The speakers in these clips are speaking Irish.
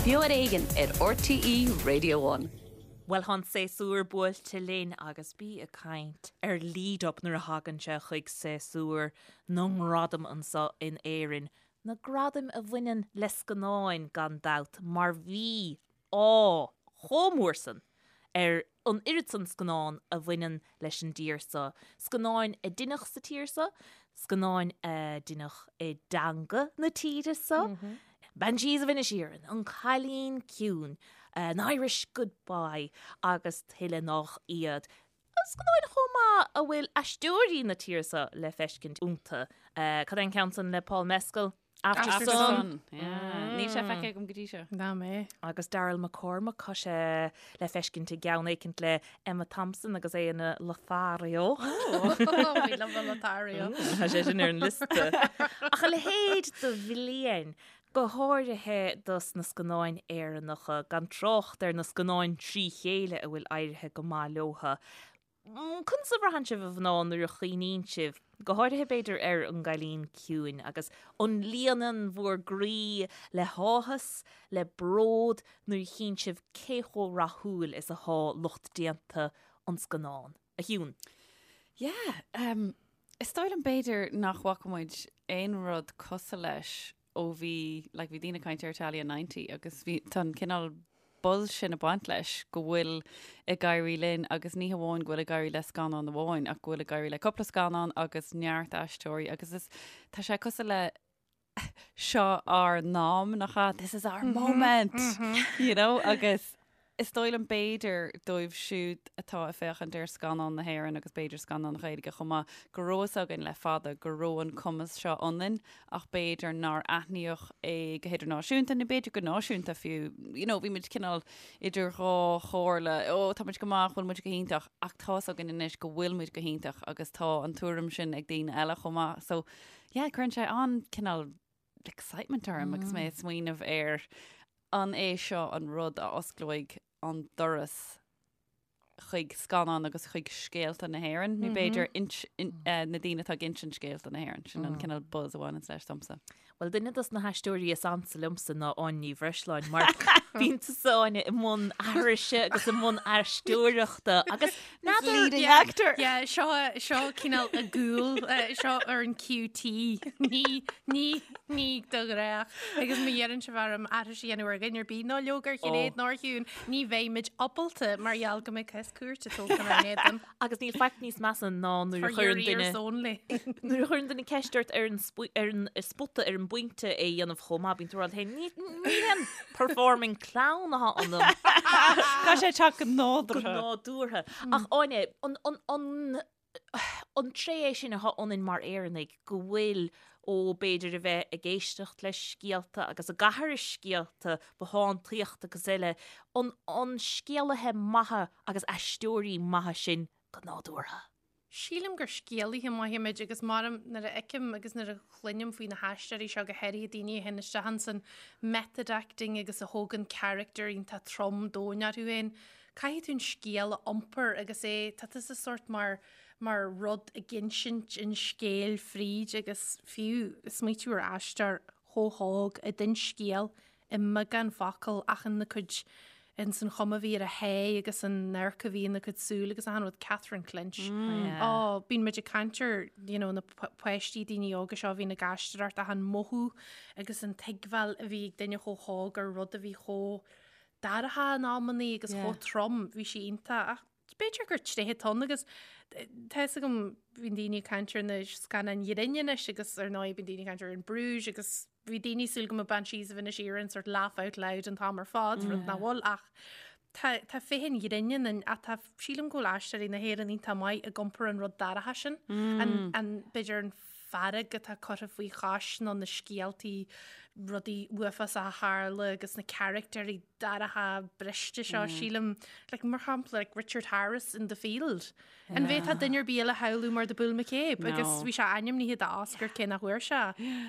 Beo ar Éigean ar RTÉ Radio One. Bhuel, tá an séasúr buailte linn agus bí ag caint ar lead up nuair a thagann sé chuig séasúr na ngradam anseo in Éirinn. Na gradaim a bhaineann le scannáin, gan dabht, mar bhí ádh chomh mór san ar an oiread san scannán a bhaineann leis an dtír so, scannáin a deineadh sa tír so, scannáin a deineadh i dteanga na tíre so, Banshees of Inisherin, An Cailín Ciúin, An Irish Goodbye agus tuilleadh nách iad. Scannáin chomh maith a bhfuil aisteoirí na tíre so le feiscint iontu. Cad é an ceann san le Paul Mescal? Aftersun. Níl sé feicthe agam go dtí seo. Ná mé. Agus Daryl McCormack, tá sé le feiscint i gceann éicint le Emma Thompson agus é ina Lothario. We love a Lothario. Tá sé sin ar an liosta. Ach a leithéid de bhliain, go háirithe dos na scannáin Éireannacha, gan trácht ar na scannáin trí chéile a bhfuil éirithe go maith leotha. Conas a bhraitheann sibh, a mhná, nuair a chuimhníonn sibh, go háirithe b'fhéidir ar An gCailín Ciúin, agus an líonann bhur gcroí le háthas, le bród nuair a chíonn sibh cé chomh rathúil is athá lucht déanta an scannáin? A Shiún. Yeah, um, is dóigh liom b'fhéidir nach bhfaca muid aon rud cosúil leis ó bhí, like, bhí daoine ag caint ar Italia 90 agus bhí, tá an cineál buzz sin ag baint leis go bhfuil ag éirí linn agus ní hamháin go bhfuil ag éirí le scannán amháin ach go bhfuil ag éirí le cúpla scannán agus neart aisteoirí agus is, tá sé cosúil le seo ár n-am, nach ea? This is our moment, you know, agus Is dóigh liom b'fhéidir dóibh siúd atá ag féachaint ar scannáin na hÉireann agus b'fhéidir scannáin Ghaeilge chomh maith, go raibh fhios againn le fada go raibh an cumas seo ionainn ach b'fhéidir nár aithníodh é go hidirnáisiúnta nó b'fhéidir go náisiúnta fiú. You know, bhí muid cineál idir dhá chomhairle, ó tá muid go maith, bhfuil muid go hiontach ach tá fhios againn anois go bhfuil muid go hiontach agus tá an tuairim sin ag daoine eile chomh maith. So yeah, cuireann sé an-cineál excitement orm agus mé ag smaoineamh ar an é seo an rud a osclóidh an doras chuig scannán agus chuig scéalta na hÉireann, nó b'fhéidir na daoine atá ag insint scéalta na hÉireann, sin an cineál buzz a bhaineanns leis domsa. Bhuel, duine dos na haisteoirí is ansa liomsa ná Áine Ní Bhreisleáin, mar bíonn tusa, Áine, i mbun aithrise agus i mbun aisteoireachta agus n'fheadar... Leading actor! Yeah, seo, seo cineál i gcúl, seo ar an QT, ní, ní, ní do ghnách. Agus má iarrann sibh orm aithris a dhéanamh ar dhuine ar bith, ná leoga ar Shinéad ná ar Shiún, ní bheidh muid ábalta mar gheall go mbeidh cás cúirte tógtha inár n-éadan. Agus níl faic níos measa ná nuair a chuireann duine nuair a chuireann duine ceist ort ar an ar an spota ar an bpointe é a dhéanamh chomh maith, bíonn tú ag rá leat féin, ní ní haon performing clown atá ionam. Caithfidh sé teacht go nádúrtha. Go nádúrtha. Ach Áine, an an an an tréith é sin atá ionainn mar Éireannaigh, go bhfuil, ó b'fhéidir a bheith ag éisteacht le scéalta agus ag aithris scéalta, bothántaíocht agus eile, an an scéalaithe maithe agus aisteoirí maithe sinn go nádúrtha? Sílim gur scéalaithe maithe muid agus mar nuair a fheicim agus nuair a chluinim faoi na haisteoirí seo, go háirithe daoine a théann isteach ins an method acting agus a thógann character iontach trom domhain orthu féin, Caithfidh tú an scéal a iompar agus é, tá tusa sórt mar, mar rud ag insint an scéil fríd agus fiú smaoitiú ar aisteoir chomh hóg a d'inis scéal i mbeagán focal ach ina cuid, ins an chuma a bhí ar a haghaidh agus an amharc a bhí ina cuid súl agus achan rud, Catherine Clinch. Ó, bíonn muid ag caint ar, you know, na páistí, daoine óga seo a bhíonn ag aisteoireacht ach an mothú agus an tuigbheáil a bhí ag duine chomh hóg ar rud a bhí chomh dorcha in amannaí agus chomh trom, bhí sí iontach ach b'fhéidir gur tréith atá ann agus tá fhios agam bíonn daoine ag caint ar na scannáin ghrinn anois agus ar ndóigh bíonn daoine ag caint ar In Bruges agus bhí daoine ag súil go mbeadh Banshees of Inisherin sort laugh out loud an t-am ar fad, rud nach bhfuil ach tá tá féith an ghrinn ann ach tá sílim go bhfuil aisteoirí na hÉireann iontach maith ag iompar an rud dorcha sin, an an b'fhéidir an fearg atá curtha faoi chois nó na scéaltaí, rudaí uafásacha a tharla agus na caractéirí dorcha briste seo, sílim, like, mar shampla, like Richard Harris in The Field. An bhféadfá duine ar bith eile a shamhlú mar The Bull McCabe agus bhí sé ainmnithe do Oscar cé nach bhfuair sé.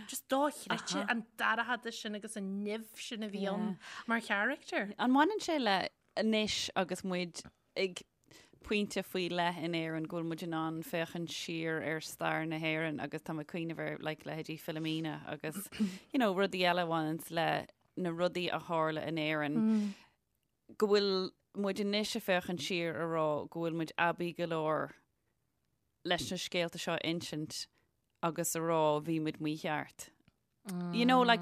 Just dochreidte an dorchadas sin agus an nimh sin a bhí ann mar character. An mbaineann sé le anois agus muid ag pointe faoi leith in Éirinn go bhfuil muid in ann féachaint siar ar stair na hÉireann agus tá mé ag cuimhneamh ar like leithéidí Philomena agus you know rudaí eile a bhaineanns le. na rudaí a tharla in Éirinn, go bhfuil muid anois ag féachaint siar a rá go bhfuil muid aibí go leor leis na scéalta seo a insint agus a rá bhí muid mícheart. You know, like,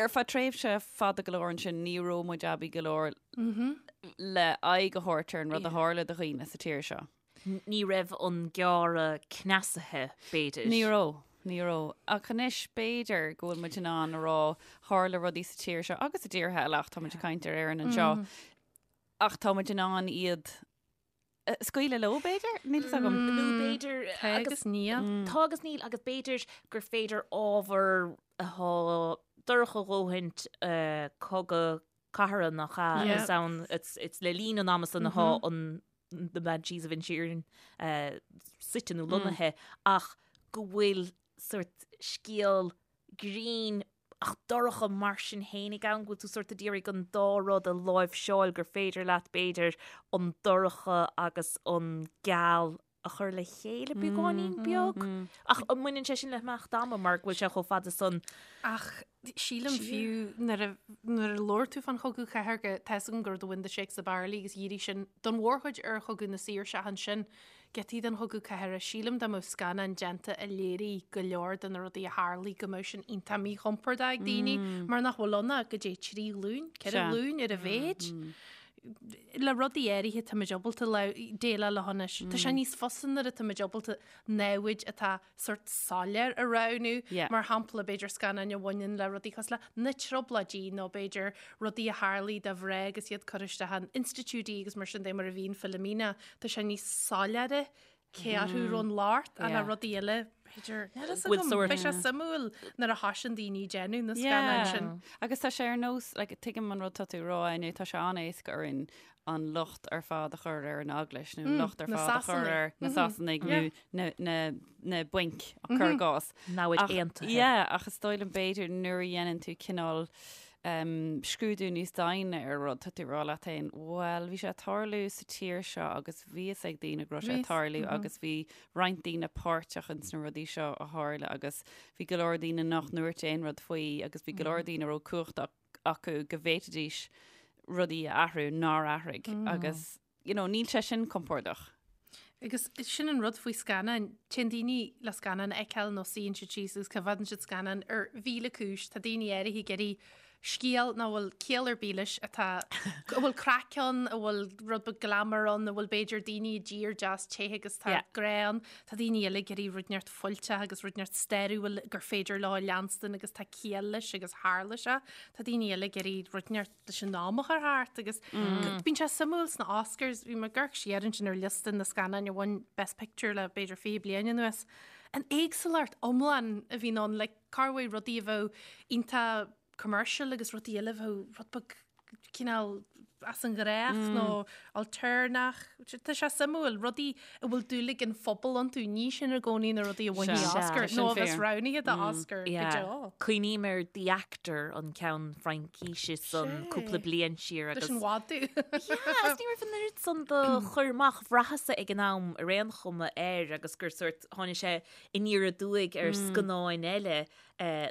ar feadh tréimhse fada go leor ansin ní raibh muid aibí go leor le aghaidh a thabhairt ar an rud a tharla do dhaoine sa tír seo. Ní raibh an gearradh cneasaithe, b'fhéidir. Ní raibh, ní raibh. Ach anois b'fhéidir go bhfuil muid in ann a rá tharla rudaí sa tír seo agus i dtíortha eile ach tá muid ag caint ar Éirinn anseo. Ach tá muid in ann iad scaoileadh leo, b'fhéidir? Níl fhios agam. Nó b'fhéidir... Tá agus níl. Tá agus níl agus b'fhéidir gur féidir ábhar atá dorcha a dhóthaint, cogadh cathartha nach ea, is ann, it's le linn an ama san atá an The Banshees of Inisherin suite nó lonnaithe ach go bhfuil sort scéal grinn ach dorcha mar sin fhéinig ann, go bhfuil tú sort ag iarraidh an dá rud a láimhseáil, gur féidir leat, b'fhéidir, an dorcha agus an geal a chur le chéile beagáinín beag. Ach an mbaineann sé sin le himeacht ama mar go bhfuil sé chomh fada san? Ach sílim fiú nuair a nuair a labhair tú fán chogadh cathartha, tá fhios agam gur The Wind That Shakes the Barley agus dhírigh sin don mhórchuid ar chogadh na saoirse ansin. Giotaí den Chogadh Cathartha, sílim dá mbeadh scannán déanta a léirigh go leor de na rudaí a tharlaigh go mbeadh sin iontach míchompordach ag daoine mar nach bhfuil ann ach goidé trí ghlúin, ceithre ghlúin ar a mhéid. Le rudaí áirithe táimid ábalta déileáil leo anois. Tá sé níos fusa nuair atáimid ábalta namhaid atá sort soiléir a roghnú. Mar shampla, b'fhéidir scannáin a bhaineann le rudaí cosúil le na Trioblóidí nó b'fhéidir rudaí a tharlaigh do mhná agus iad curtha isteach in institiúidí agus mar sin de mar a bhí in Philomena. Tá sé níos soiléire cé orthu a raibh an locht ach le rudaí eile, b'fhéidir, níl fhios agam, beidh sé suimiúil nuair a thosaíonn daoine ag déanamh na scannáin sin. Agus tá sé ar nós, like, tuigim an rud tá tú a rá, Áine, tá sé an-éasca orainn an locht ar fad a chur ar an Eaglais nó an locht ar fad a chur ar na Sasanaigh nó na bainc cuir i gcás. Namhaid aontaithe. Yeah, ach is dóigh liom b'fhéidir nuair a dhéanann tú cineál scrúdú níos doimhne ar rud, tá tú ag rá leat féin, bhuel, bhí sé ag tarlú sa tír seo agus bhí fhios ag daoine go raibh sé ag tarlú agus bhí roinnt daoine páirteach ins na rudaí seo a tharla agus bhí go leor daoine nach ndúirt aon rud faoi agus bhí go leor daoine a raibh cumhacht acu go bhféadfaidís rudaí a athrú nár athraigh agus you know, níl sé sin compordach. Agus sin an rud faoi scannáin, téann daoine le scannán a fheiceáil nó suíonn siad síos agus coimheádann siad scannán ar mhíle cúis. Tá daoine áirithe ag iarraidh scéal nach bhfuil ciall ar bith leis atá, a bhfuil craic ann, a bhfuil rud beag glamour ann, a bhfuil b'fhéidir daoine i dtír deas te agus tá grá ann. Tá daoine eile ag iarraidh rud inteacht fuilteach agus rud inteacht stairiúil gur féidir leo a leanstan agus tá ciall leis agus tharla sé. Tá daoine eile ag iarraidh rud inteacht leis an am a chur thart agus bíonn sé suimiúil sna Oscars, bhí mé ag amharc siar ansin ar liosta na scannáin a bhain Best Picture le b'fhéidir 20 bliain anuas. An éagsúlacht iomlán a bhíonn ann, like corruair rudaí a bheadh iontach commercial agus rudaí eile a bheadh rud beag cineál as an ghnách nó ailtéarnach. Tá sé suimiúil, rudaí a bhfuil dúil ag an phobal iontu, ní sin i gcónaí na rudaí a bhainfidh Oscar nó a bheas roghnaithe do Oscar go deo. Cuimhním ar The Actor, an ceann Fraincíse san cúpla bliain siar agus. Leis an mhadadh. Yeah, agus ní raibh an oiread san de chur amach bhraitheas-sa ag an am ar aon chuma air agus gur sort tháinig sé aniar aduaidh ar scannáin eile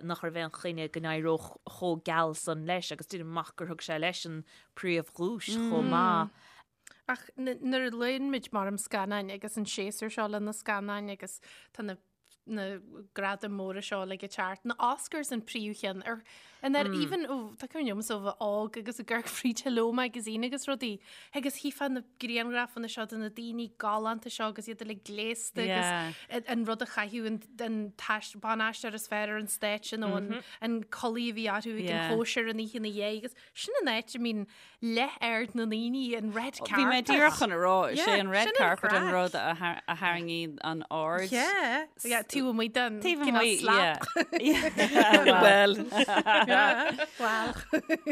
nach raibh aon choinne go n-éireodh chomh geal san leis agus deinim amach gur thug sé leis an príomhdhuais chomh maith. Ach nuair a léann muid mar am scannáin agus an séasúr seo le na scannáin agus tá na na gradaim móra seo le ag teacht, na Oscars an príomhcheann ar an ar even ó tá cuimhne liom ó bheith óg agus ag amharc fríd Hello Magazine agus rudaí agus chífeá na grianghrafanna seo de na daoine galánta seo agus iad uilig gléasta agus an rud a chaitheadh an an ban-aisteoir is fearr ar an stáitse nó an an culaith a bhí orthu ag an chóisir an oíche ina dhiaidh agus sin an áit a mbíonn leath aird na ndaoine an red carpet. Bhí mé díreach chun a rá, is é an red carpet an rud a tharraingíonn an aird. Yeah, yeah, taobh amuigh den Taobh amuigh, yeah. Well. Well.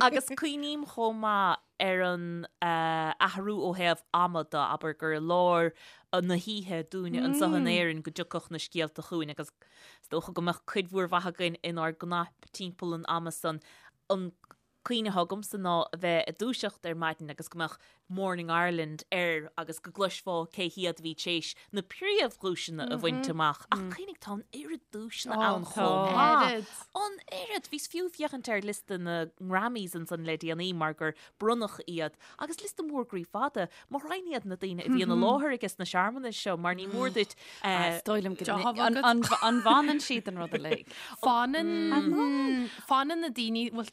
Agus cuimhním chomh maith ar an athrú ó thaobh ama de, abair gur i lár na hoíche dúinne anseo in Éirinn go dtiocfadh na scéalta chugainn agus is dócha go mbeadh cuid mhór mhaith againn inár gcnaip timpeall an ama san. An. Cuimhne atá agamsa ná a bheith ag dúiseacht ar maidin agus go mbeadh Morning Ireland air agus go gcloisfeá cé hiad a bhí tar éis na príomhdhuaiseanna a bhaint amach. Ach cuimhnigh, tá an oiread duaiseanna ann chomh maith. An oiread! Bhíos fiú ag féachaint ar liosta na nGrammys ansan le déanaí mar gur bronnadh iad agus liosta mór groí fada. Mo ghraidhin iad na daoine a bhíonn i láthair ages na searmanais seo mar ní mór duit Is dóigh liom go an bhfanann siad an rud uilig. Fanann fanann na daoine bhuel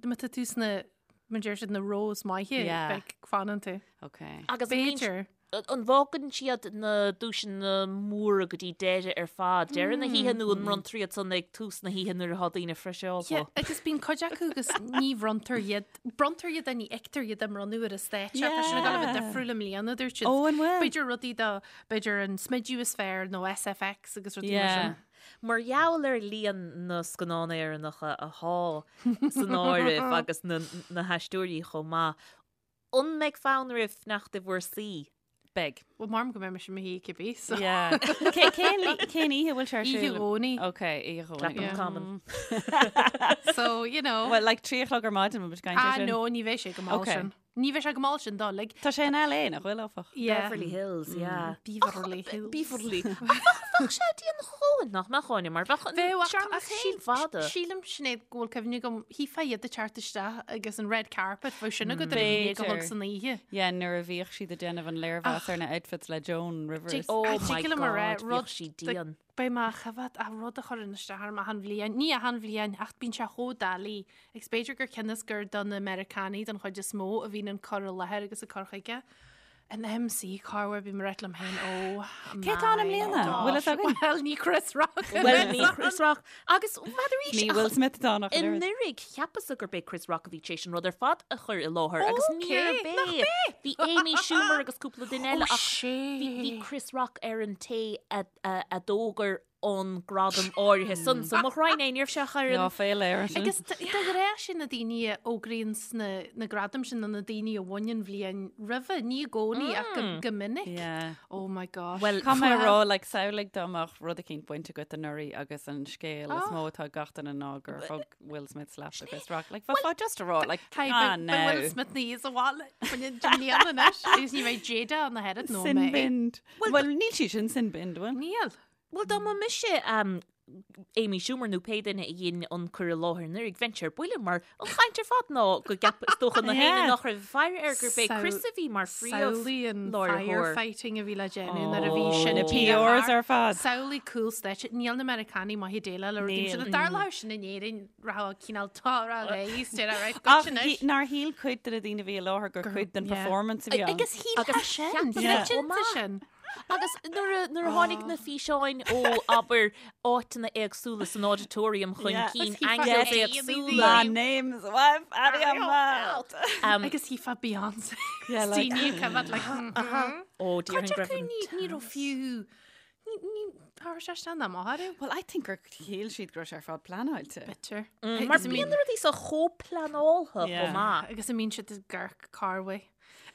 má tá tú sna mar deir siad na rows maithe beidh fanann tú. Ok. Agus B'fhéidir. An bhfágann siad na duaiseanna móra go dtí deireadh ar fad, deireadh na hoíche nó an mbronntar iad san ag tús na hoíche nuair atá daoine friseálta? Yeah, agus bíonn cuid acu agus ní bhronntar iad, bronntar iad ní fheictear iad á mbronnadh ar an stáitse, tá sin ag dul a bheith difriúil i mbliana, dúirt siad. Ó, an bhfuil? B'fhéidir rudaí do, b'fhéidir an smideadh is fearr nó SFX agus rudaí mar sin. Mar gheall ar líon na scannán Éireannacha athá san áireamh agus na na haisteoirí chomh maith, An mbeidh fonn oraibh fanacht i bhur suí? Beidh. Bhuel, maram go mbeidh mise i mo shuí cibé, so. Yeah. Cé, cén, cén oíche bhfuil sé ar siúl? Oíche Dhomhnaigh. Ok, oíche Dhomhnaigh. Clapham Yeah. Common. So, you know. Well, like 3 a chlog ar maidin, muid ag caint Ah, ar sin. no, ní bheidh sé go mall Ok. sin. Ní bheidh sé go mall sin dul, like. Tá sé in LA, nach bhfuil, áfach? Yeah. Beverly Hills, yeah. Beverly Hills. Beverly. Ach bheadh sé dian a dhóthain, nach mbeadh, Áine, mar bheadh an Bheadh, ach searmanas ach féin síl- fada. Sílim, Sinéad, go bhfuil cuimhne agam, shílfeá iad ag teacht isteach agus an red carpet, bheadh sin agat ar a haon déag a chlog B'fhéidir. san oíche. Yeah, nuair a bhíodh siad ag déanamh an léirmheas ar na outfits le Joan Rivers. Oh Ach my tig liom a rá, God, rud bhíodh sí dian. Beidh mé á choimhéad ach rud a chuireann isteach orm achan bhliain, ní achan bhliain, ach bíonn sé chomh doiligh, agus b'fhéidir gur cionn is gur do na Meiriceánaigh don chuid is mó a bhíonn an cur i láthair agus an cur chuige. An MC corruair bím ag rá liom féin oh Cé atá ann i mbliana? Bhfuil fhios againn? Bhuel ní Chris Rock. Bhuel ní Chris Rock. Agus n'fheadar arís Ní Will Smith atá ann ach an oiread. Anuraidh cheapas-sa gurb é Chris Rock a bhí tar éis an rud ar fad a chur i láthair agus níorbh é. Bhí Amy Schumer agus cúpla duine eile ach bhí Chris Rock ar an té a d'fhógair an gradam áirithe san. So mo ghraidhin é, ní raibh sé ach ar an. Lá féile air sin. Agus de ghnáth sin na daoine a fhógraíonn sna na gradaim sin ná na daoine a bhain an bhliain roimhe, ní i gcónaí ach go, go minic. Yeah. Oh my gosh. Well, Caithfidh mé a rá, like, samhlaigh dá mbeadh rud eicínt bainte agat anuraidh agus an scéal is mó atá ag gach duine ná gur thug Will Smith slap do Chris Rock. Like, bheifeá just a rá, like, Hey, ah, beidh no. Will Smith ní sa bhaile faoin mbliana anois agus ní bheidh Jada ann ach oiread nó Sin mé. binned. Well, níl sí sin sin binned, bhfuil? Níl. Bhuel, dá mba mise Amy Schumer nó pé duine a dhein an cur i láthair anuraidh, bheinnse ar buile mar an chaint ar fad ná go gceap, is dócha na héinne nach raibh ag faire air gurb é Chris a bhí mar Samhlaigh an phríomh-láithreoir. firefighting a bhí le déanamh nuair a bhí sin Na díreach PRs thart. ar fad. Samhlaigh cúl stáitse. Níl na Meiriceánaigh maith ag déileáil le rudaí Níl. sin. Dá dtarlódh sin in Éirinn, rachadh cineál tá réidh, right, Ach goitse anois. nár shíl cuid de na daoine a bhí i láthair gur cuid den yeah. performance a bhí ann. Agus shíl Agus sin. cheap Yeah. Cinnte sin. Agus nuair a nuair a tháinig na físeáin ó abair áiteanna éagsúla san auditorium chun Yeah. cinn Agus shílfeá angles go éagsúla. My name's wife out of your mouth. Agus shílfeá Beyonce. Yeah, like- Daoine ag coimhéad like, Ó Cuid déarfainn go acu raibh an ní ní raibh fiú ní ní tharla sé sin am áirithe. Well, I think gur shíl siad go raibh sé ar fad pleanáilte. Bitter. Mar bíonn na rudaí seo chomh pleanáilte Yeah. chomh maith. Agus a mbíonn siad ag amharc corruair.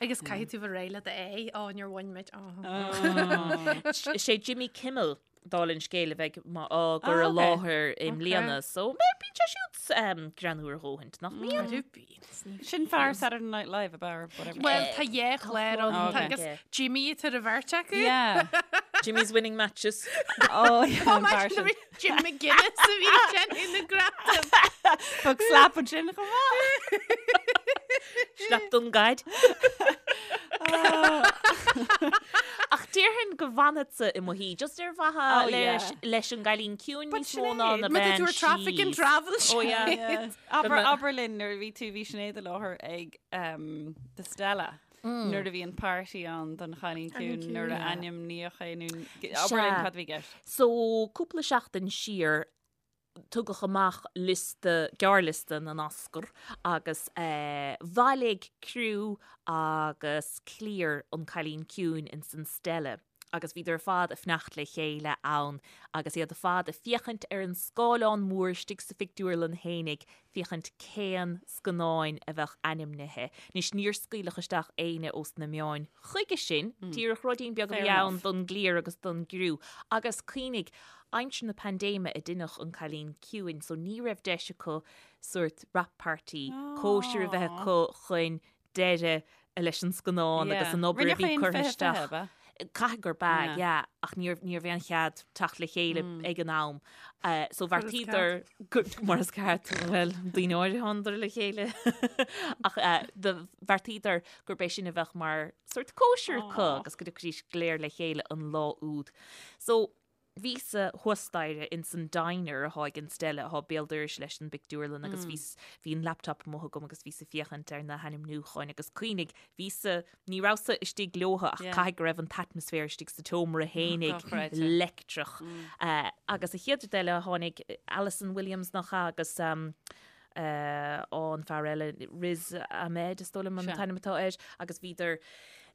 Agus caithfidh tú bheith réidh le d'aghaidh, ó, níor bhain muid, ó. Is é Jimmy Kimmel, dála an scéil, a bheidh á gcur i Ah, ok. láthair i mbliana, so bíonn sé siúd greannmhar a dhóthaint, nach mbíonn? Arú bíonn. Sin fear Saturday Night Live ab ea or whatever. Bhuel, tá dhá chlár ann, Ok. tá agus Jimmy tar a bheirt acu. Yeah. Jimmy's winning matches. Oh, yeah, Oh, an fear imagine sin. the Jim McGuinness a bhí ag déanamh na gradam. Thug slap ansin chomh maith. Slap don gcaid. Ach déarfainn go bhfanfadsa i mo shuí, just ar mhaithe Oh, leis, yeah. leis an gcailín ciúin But níos mó ná na Má tá bean tú ar traffic and síos. travel Oh, yeah. Yeah. Abair, mbe- abair linn nuair a bhí tú bhí Sinéad i láthair ag um, The Stella. Nuair a bhí an party ann don chailín ciúin nuair a ainmníodh é nó abair linn Sea. cad a bhí i gceist. So, cúpla seachtain siar, tugadh amach liosta, gearrliosta na nOscar agus bhailigh criú agus cliar an Cailín Ciúin ins an Stella. Agus bhíodar ar fad ag fanacht le chéile ann agus iad ar fad ag féachaint ar an scáileán mór istigh sa phictiúrlann fhéinig féachaint cén scannáin a bheadh ainmnithe. Anois níor scaoileadh isteach éinne ós na meáin chuige sin, díreach ruidín beag a bhí ann don gcliar agus don gcriú. Agus cuimhnigh, aimsir na paindéime a deineadh An Cailín Ciúin so ní raibh deis acu sórt wrap party, cóisir a bheith acu chun deireadh leis an scannán agus an obair a bhí curtha isteach. Caithfidh gurb ea, yeah, ach ní raibh aon chead teacht le chéile ag an am. So bheartaíodar mar is ceart, bhuel, daoine áirithe thánadar le chéile. Ach do bheartaíodar gurb é sin a bheadh mar sórt cóisir acu agus go dtiocfaidís go léir le chéile an lá úd. So bhíos-sa thuas staighre ins an diner athá ag an Stella athá béal dorais leis an bpictiúrlann agus bhíos, bhí an laptop amuigh agam agus bhíos ag féachaint ar na hainmniúcháin agus cuimhnigh, bhíos-sa, ní rabhas-sa istigh leotha ach caithfidh go raibh an t-atmaisféar istigh sa tseomra fhéinig leictreach. Agus an chéad rud eile tháinig Allison Williams nach ea agus an fear eile, Riz Ahmed is dóigh liom an t-ainm atá air, agus bhíodar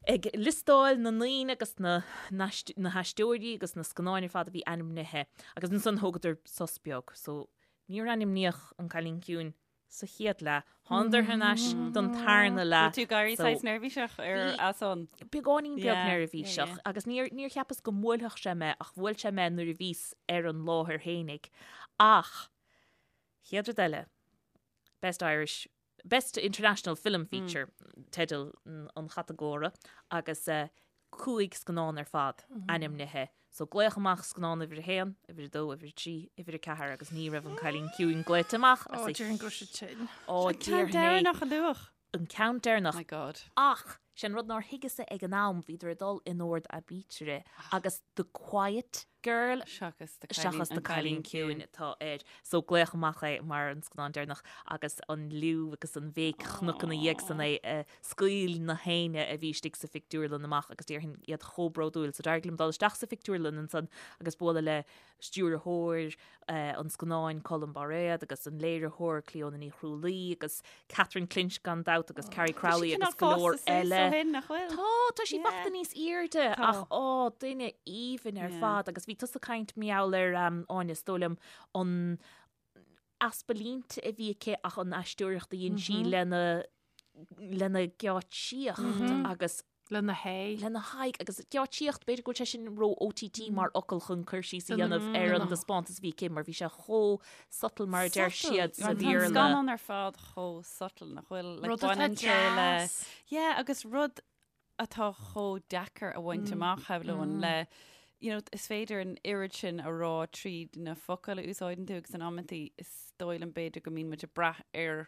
ag liostáil na ndaoine agus na na haisteoirí agus na scannáin ar fad a bhí ainmnithe agus ansan thógadar sos beag so níor ainmníodh An Cailín Ciúin sa chéad leath. Thánadar thar n-ais don tarna leath. Bhí tú ag éirí saghas neirbhíseach ar a son? Beagáinín beag neirbhíseach agus níor níor cheapas go mbuailfeadh sé mé ach bhuail sé mé nuair a bhíos ar an láthair fhéinig. Ach Chéad rud eile, Best Irish, Best International Film Feature, teideal an chatagóra, agus 5 scannán ar fad ainmnithe. So glaodh amach scannán uimhir a haon, uimhir a dó, uimhir a trí, uimhir a ceathair agus ní raibh An Cailín Ciúin glaoite amach. Ó, déarfainn go raibh sé tinn. Ó, An ceann déarfainn é. deireanach a luadh. An ceann deireanach. My God. Ach, sé an rud nár thuigeas-sa ag an am, bhíodar ag dul in ord aibítire agus The Quiet Girl Seachas The seachas The Cailín Ciúin atá air. So glaodh amach é mar an scannán deireanach agus an liú agus an bhéic chonac ina dhiaidh san é a scaoil na héinne a bhí istigh sa phictiúrlann amach agus déarfainn iad chomh bródúil. So d'éirigh liom dul isteach sa phictiúrlann ansan agus bualadh le stiúrthóir an scannáin Colm Bairéad agus an léiritheoir Clíona Ní Chrualaoi agus Catherine Clinch gan dabht agus Carrie Crowley agus go leor eile. Tá, tá sí fachta níos airde ach á, duine aoibhinn ar fad agus bhí tusa ag caint mar gheall ar Áine, is dóigh liom, an easpa línte a bhí aici ach an aisteoireacht a dhein sí lena lena geáitsíocht agus Lena haghaidh. Lena haghaidh agus geáitsíocht, b'fhéidir go bhfuil sé sin ró OTT mar fhocal chun cur síos a dhéanamh ar an dtaispeántas a bhí aici mar bhí sé chomh subtle mar a deir siad sa Tá an Bhéarla. scannán ar fad chomh subtle nach bhfuil like, Rud atá baineann sé le deas. Yeah, agus rud atá chomh deacair a bhaint amach shamhlóinn le you know, is féidir an oiread sin a rá tríd na focail a úsáideann tú agus in amantaí is dóigh liom b'fhéidir go mbíonn muid ag brath ar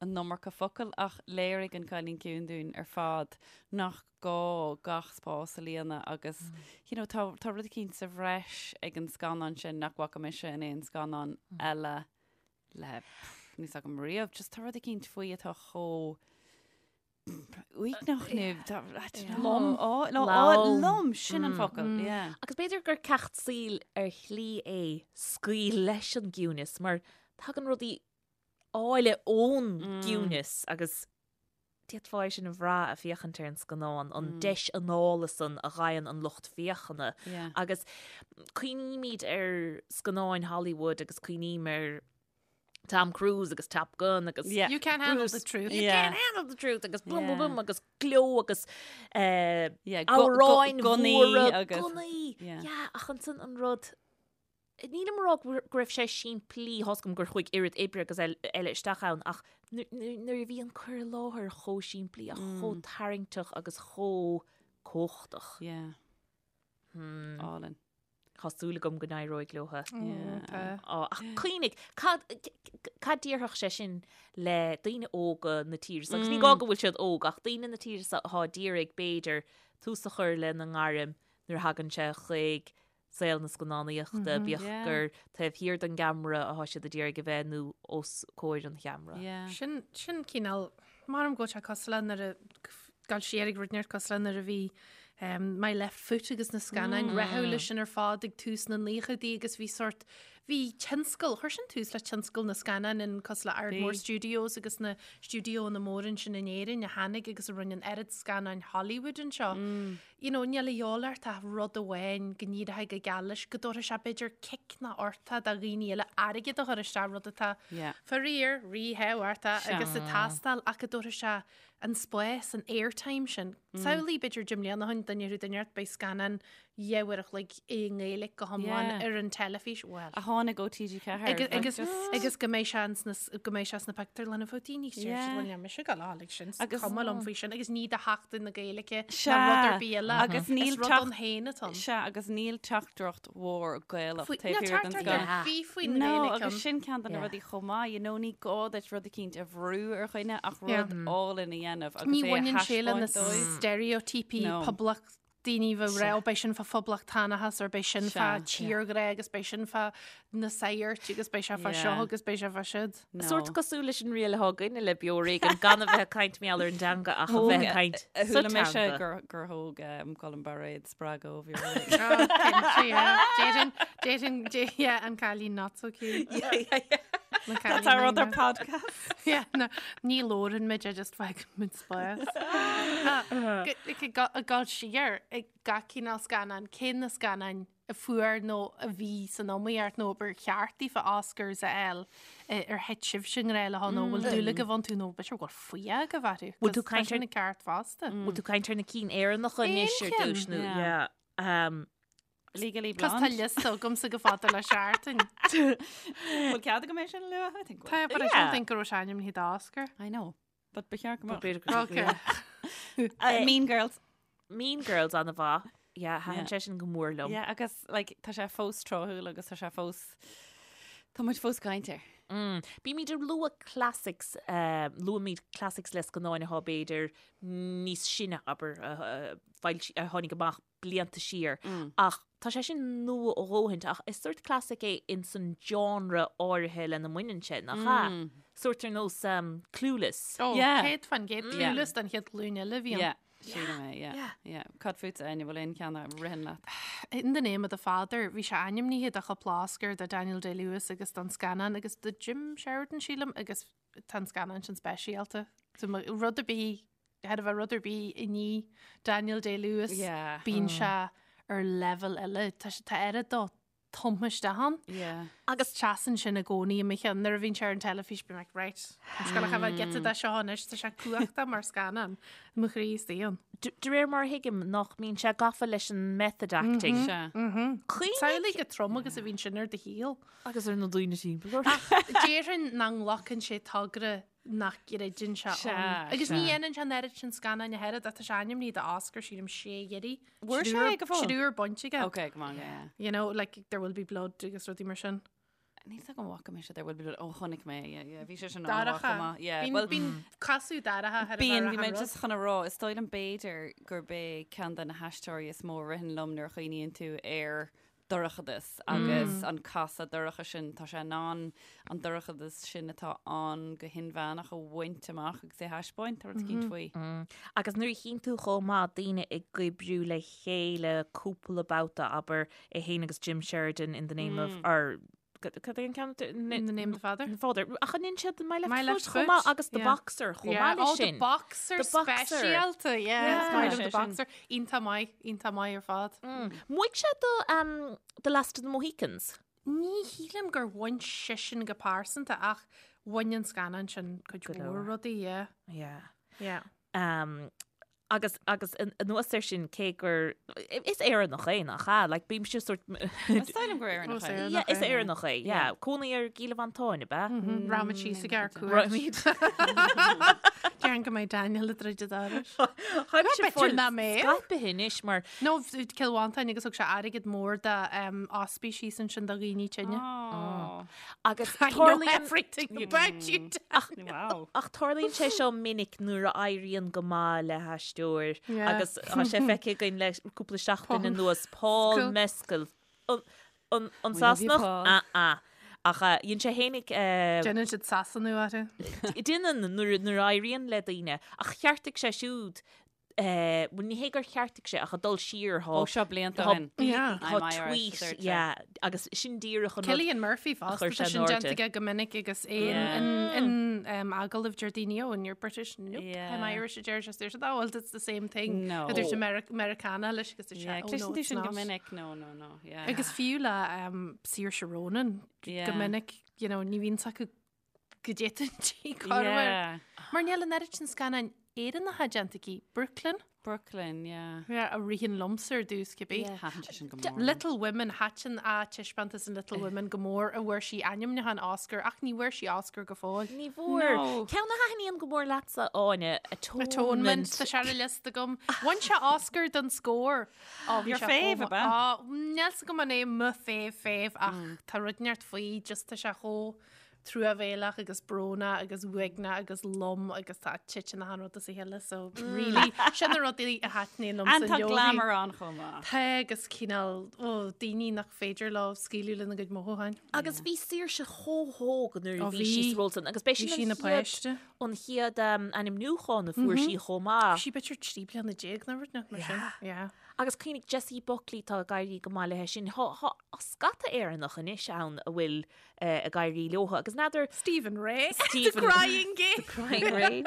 an iomarca focal ach léirigh An Cailín Ciúin dúinn ar fad nach gá gach spás a líonadh agus you know, tá, tá rud eicínt sa bhreis ag an scannán sin nach bhfaca mise in aon scannán eile le pff, níl 's agam riamh. Just tá rud eicínt faoi atá chomh uaigneach nó tá- I don't know. Lom. Á, lo- á, Lom. lom, sin an focal, yeah. Agus b'fhéidir gur ceacht saoil ar shlí é scaoil leis an gciúnas mar tagann rudaí áille ón gciúnas agus d'fhéadfá é sin a bhrath ag féachaint ar an scannán, an deis anála san a fhaigheann an lucht féachana. Agus cuimhnímid ar scannáin Hollywood agus cuimhním ar Tom Cruise agus Top Gun agus You can't handle the truth. You can't handle the truth agus boom boom boom agus gleo agus amhráin mhóra, gunnaí. Yeah, ach ansan an rud Nílim ag rá go raibh sé simplí, tá's agam gur chuaigh oiread oibre agus eile isteach ann ach nuair a bhí an cur i láthair chomh simplí ach chomh tarraingteach agus chomh cumhachtach. Yeah. Hmm. Álainn. Tá súil agam go n-éireoidh leo. Yeah. Ach cuimhnigh, cad cad déarfadh sé sin le daoine óga na tíre seo? Agus ní gá go bhfuil siad óg ach daoine na tíre seo atá ag iarraidh b'fhéidir tús a chur lena ngairm nuair a thagann sé chuig saol na scannánaíochta, bíodh gur taobh thiar den gceamara atá siad ag iarraidh a bheith nó os comhair an cheamara. Sin, sin cineál, maram go bhfuil sé cosúil le nuair a, gabháil siar ag rud inteacht cosúil le nuair a bhí My Left Foot agus na scannáin rathúla sin ar fad ag tús na naochaidí agus bhí sort, Bhí tionscal, chuir sin tús le tionscal na scannán in cosúil le Ardmore Bhí. Studios agus na stiúideoanna móra ansin in Éirinn a tháinig agus a rinne an oiread scannáin Hollywood anseo. You know, níl a dhíobháil ort ach rud amháin go n-éireoidh go geal leis, go dtabharfaidh sé b'fhéidir cic ná ortá do dhaoine eile airgead a chur isteach, rud atá Yeah. faraor ríthábhachtach Sea. agus ag teastáil ach go dtabharfaidh sé an spás, an airtime sin. Samhlaigh b'fhéidir 10 mbliana ó shin, duine ar duine ort, beidh scannán 2 uair a chloig i nGaeilge go hiomlán Yeah. ar an teilifís. Well. A tháinig ó TG4. Agus, like, agus, just- agus go mbeidh sé ins na, go mbeidh sé sna pictiúrlanna fá daoine Yeah. yeah. mise go lá like sin Agus- cuma liom faoi sin agus ní do Sheachtain na Gaeilge Sea. ná rud ar bith eile. Agus níl Is rud teacht- ann féin atá ann. Sea, agus níl teachtaireacht mhór Gaelach Faoi- taobh Níl thiar den teachtaireacht scannán. ar bith faoin No, Ghaeilge agus ann. sin ceann de na Yeah. rudaí chomh maith, you know, ní gá duit rud eicínt a bhrú ar dhuine ach Yeah. rud álainn a dhéanamh agus Ní é a bhaineann sé le na thaispeáint dóibh. steiréitíopaí No. poblacht daoine bheith rá, beidh sin fá phoblachtánachas or beidh sin fá Sea. tírghrá agus beidh sin fá na sagairt agus beidh sé fá seo Yeah. agus beidh sé fá siúd. No. Sórt cosúil leis an riail atá againne le Beo Ar Éigean gan a bheith ag caint mar gheall ar an dteanga ach a bheith ag caint A sa chuala mise teanga. gur gur thóg um, Colm Bairéad spreagadh ó Bheo Ar Oh, cinnte, yeah. Déarfainn, déarfainn, dé- yeah, an cailín not so cute. Na That's our cailín other not- podcast. Yeah, no, ní labhrann muid, I just fágann muid spás. Ag dul siar ag gach cineál scannán, cé na scannáin a fuair nó a bhí san iomaíocht nó ba cheart daofa Oscars a fháil ar thit sibhse i ngrá leo nó bhfuil dúil agaibh iontu nó b'fhéidir go bhfuil fuath agaibh orthu. Bhfuil tú 'cause tá caint sin ar- an ceart fosta. Bhfuil tú caint ar na cinn Éireannacha anois ar Aon cheann. dtús nó Yeah. yeah. Um, Legally Cos tá Blonde. liosta agamsa go fada le seachtain. Bhfuil cead agam é sin a lua? I think Tá, but I Yeah. don't think go raibh sé ainmnithe d'Oscar. I know. But ba cheart go mbeadh. b'fhéidir go- Okay. Uh, Mean Girls. Mean Girls an-mhaith. Yeah, thaitin Yeah. sé sin go mór liom. Yeah, agus like, tá sé fós tráthúil agus tá sé fós Tá muid fós ag caint air. Mm. Bímid ag lua classics, uh, luaimid classics le scannáin atá b'fhéidir níos sine abair a, a, foilsi- a tháinig amach blianta siar. Mm. Ach tá sé sin nua a dhóthaint ach is sórt classic é in san genre áirithe lena mbaineann sé nach ea? Mm. Sórt ar nós um, Clueless. Oh, Yeah. 100% Yeah. Clueless den chéad ghlúin eile a bhí ann. Yeah. Sílim é, yeah. Yeah. Cad fútsa Áine, bhfuil aon cheann a ritheann leat? In the Name of the Father, bhí sé ainmnithe do chúpla Oscar do Daniel Day-Lewis agus don scannán agus do Jim Sheridan sílim agus tá an scannán sin speisialta. So ma- rud ar bith, chóir a bheith rud ar bith i ndiaidh Daniel Day-Lewis, Yeah. bíonn sé ar level eile. Tá sé tá oiread dó tumtha isteach ann. Yeah. Agus seasann sin i gcónaí i mo cheann nuair a bhíonn sé ar an teilifís bím like, right, I'm just gonna have a giota de seo anois, tá sé cumhachtach mar scannán i mo chroí istigh ann. De de réir mar a thuigim nach mbíonn sé gafa leis an method acting. Sea. Cuimhnigh Samhlaigh chomh trom agus a bhíonn sin ar do shaol. agus ar na daoine timpeall ort. Déarfainn nach nglacann sé togra nach gcreideann sé Sea, ann. Agus ní sea. dhéanann sé an oiread sin scannáin a thuilleadh, tá sé ainmnithe d'Oscar sílim sé iarraidh. Bhfuair sé go fóill? Triúr bainte aige. Okay, come on, yeah. You know, like there will be blood agus rudaí mar sin. Níl a fhios agam an bhfaca mise There Will Be Blood. Ó, chonaic mé, yeah, yeah. Bhí sé sin an-mhaith Dorcha. chomh maith. Yeah, Bíonn well, bíonn casadh dorcha ar a Bíonn, bheith bhí mé ar an just chun a rá, is dóigh liom b'fhéidir gurb é ceann de na haisteoirí is mó a ritheann liom nuair a chuimhníonn tú ar dorchadas agus an casadh dorcha sin, tá sé in ann an dorchadas sin atá ann go hinmheánach a bhaint amach agus é a thaispeáint, tá rud eicínt faoi. Agus nuair a chíonn tú chomh maith daoine ag oibriú le chéile cúpla babhta, abair, é féin agus Jim Sheridan in the name of, or cad é an ceann? In the name of the father. The Father. Ach an ndéanann siad My Left My Left Foot chomh maith Foot, agus The yeah. Boxer chomh Yeah. maith leis Oh, the sin. Boxer The Boxer. speisialta, yeah. Yeah. Is maith liom Sé The sin. Boxer. Iontach maith, iontach maith ar fad. Mhaígh sé do um, The Last of the Mohicans. Ní shílim gur bhain seisean go pearsanta ach bhain an scannán sin cuid Go mhór leor. rudaí, yeah. Yeah. Yeah. Um, agus agus anuas air sin cé gur is Éireannach é nach ea? Like bímse sórt Is dóigh liom gur Éireannach Ó, é. Éireannach Yeah, is é, yeah. Éireannach é, yeah. Cónaí ar gCill Mhantáin, ab ea? Rachaimid síos ag ár cuairt. Rachaimid. Déarfainn go mbeidh Daniel ag druid an dorais. Tháimse B'fhéidir fáil nach mbeadh. scaipthe anois mar No, Cill Mhantáin agus thug sé airgead mór do ospís síos ansin do dhaoine tinne. Oh. agus I know tarlaíonn everything about you. Wow. Ach tarlaíonn sé seo minic nuair a éiríonn go maith le haisteoir Yeah. agus tá sé feicthe againn le cúpla seachtain Paul anuas Paul Mescal. Mescal. An, an, an We love you, Sasanach? Paul. Ah, ah. Ach uh, dhein sé fhéinig uh, Déanann siad Sasanú orthu. Déanann nuair nuair a éiríonn le daoine ach cheartaigh sé siúd Bhuel, ní hé gur cheartaigh sé ach ag dul siar thá. Ó seo blianta ó shin. Yeah. Tá tweet, yeah, agus sin díreach an rud. Cillian Murphy fosta, tá sin déanta aige go minic agus é in agallamh deir daoine, oh, and you're British? Nope, I'm Irish a deir sé, deir siad, oh, well, it's the same thing. No. A dúirt an Meiriceánach leis agus dúirt sé, oh, no, it's not. go minic, no, no, no, yeah. Agus fiú le Saoirse Ronan go minic, you know, ní bhíonn acu go dtéann sí corruair. Mar níl an oiread sin scannáin Éireannacha déanta aici. Brooklyn? Brooklyn, yeah. Yeah, a ritheann liomsa ar dtús cibé. Yeah. Thaitin sé sin go mór. Little Women, thaitin a taispeántas in Little Women go mór a bhfuair sí ainmniúchán Oscar ach ní bhfuair sí Oscar go fóill. Ní bhfuair. No. Ceann a thaitníonn go mór leatsa, Áine, Atonement. Atonement, tá sé ar an liosta agam. Bhain sé Oscar don scór. Ó, bhí Your sé fave, ab ea? Á, níl 's agam an é mo fave fave ach tá rud inteacht faoi, just tá sé chomh truamhéalach agus brónach agus uaigneach agus lom agus tá titeann achan rud as a chéile so really sin na rudaí a thaitníonn liomsa And tá glamour ann chomh maith. Tá agus cineál ó daoine nach féidir leo scaoileadh lena gcuid mothúcháin. Agus bhí Saoirse chomh hóg nuair a bhí sí sa ról san agus b'é sin an chéad an chéad ainmniúchán a fuair sí chomh maith. Bhí sí b'fhéidir 13 bliana nó rud mar sin. Yeah. Agus cuimhnigh Jessie Buckley tá ag éirí go maith léi sin. Tá scata Éireannach anois ann a bhfuil ag éirí leo agus n'fheadar Stephen Rea. The Crying Game. The Crying Ray.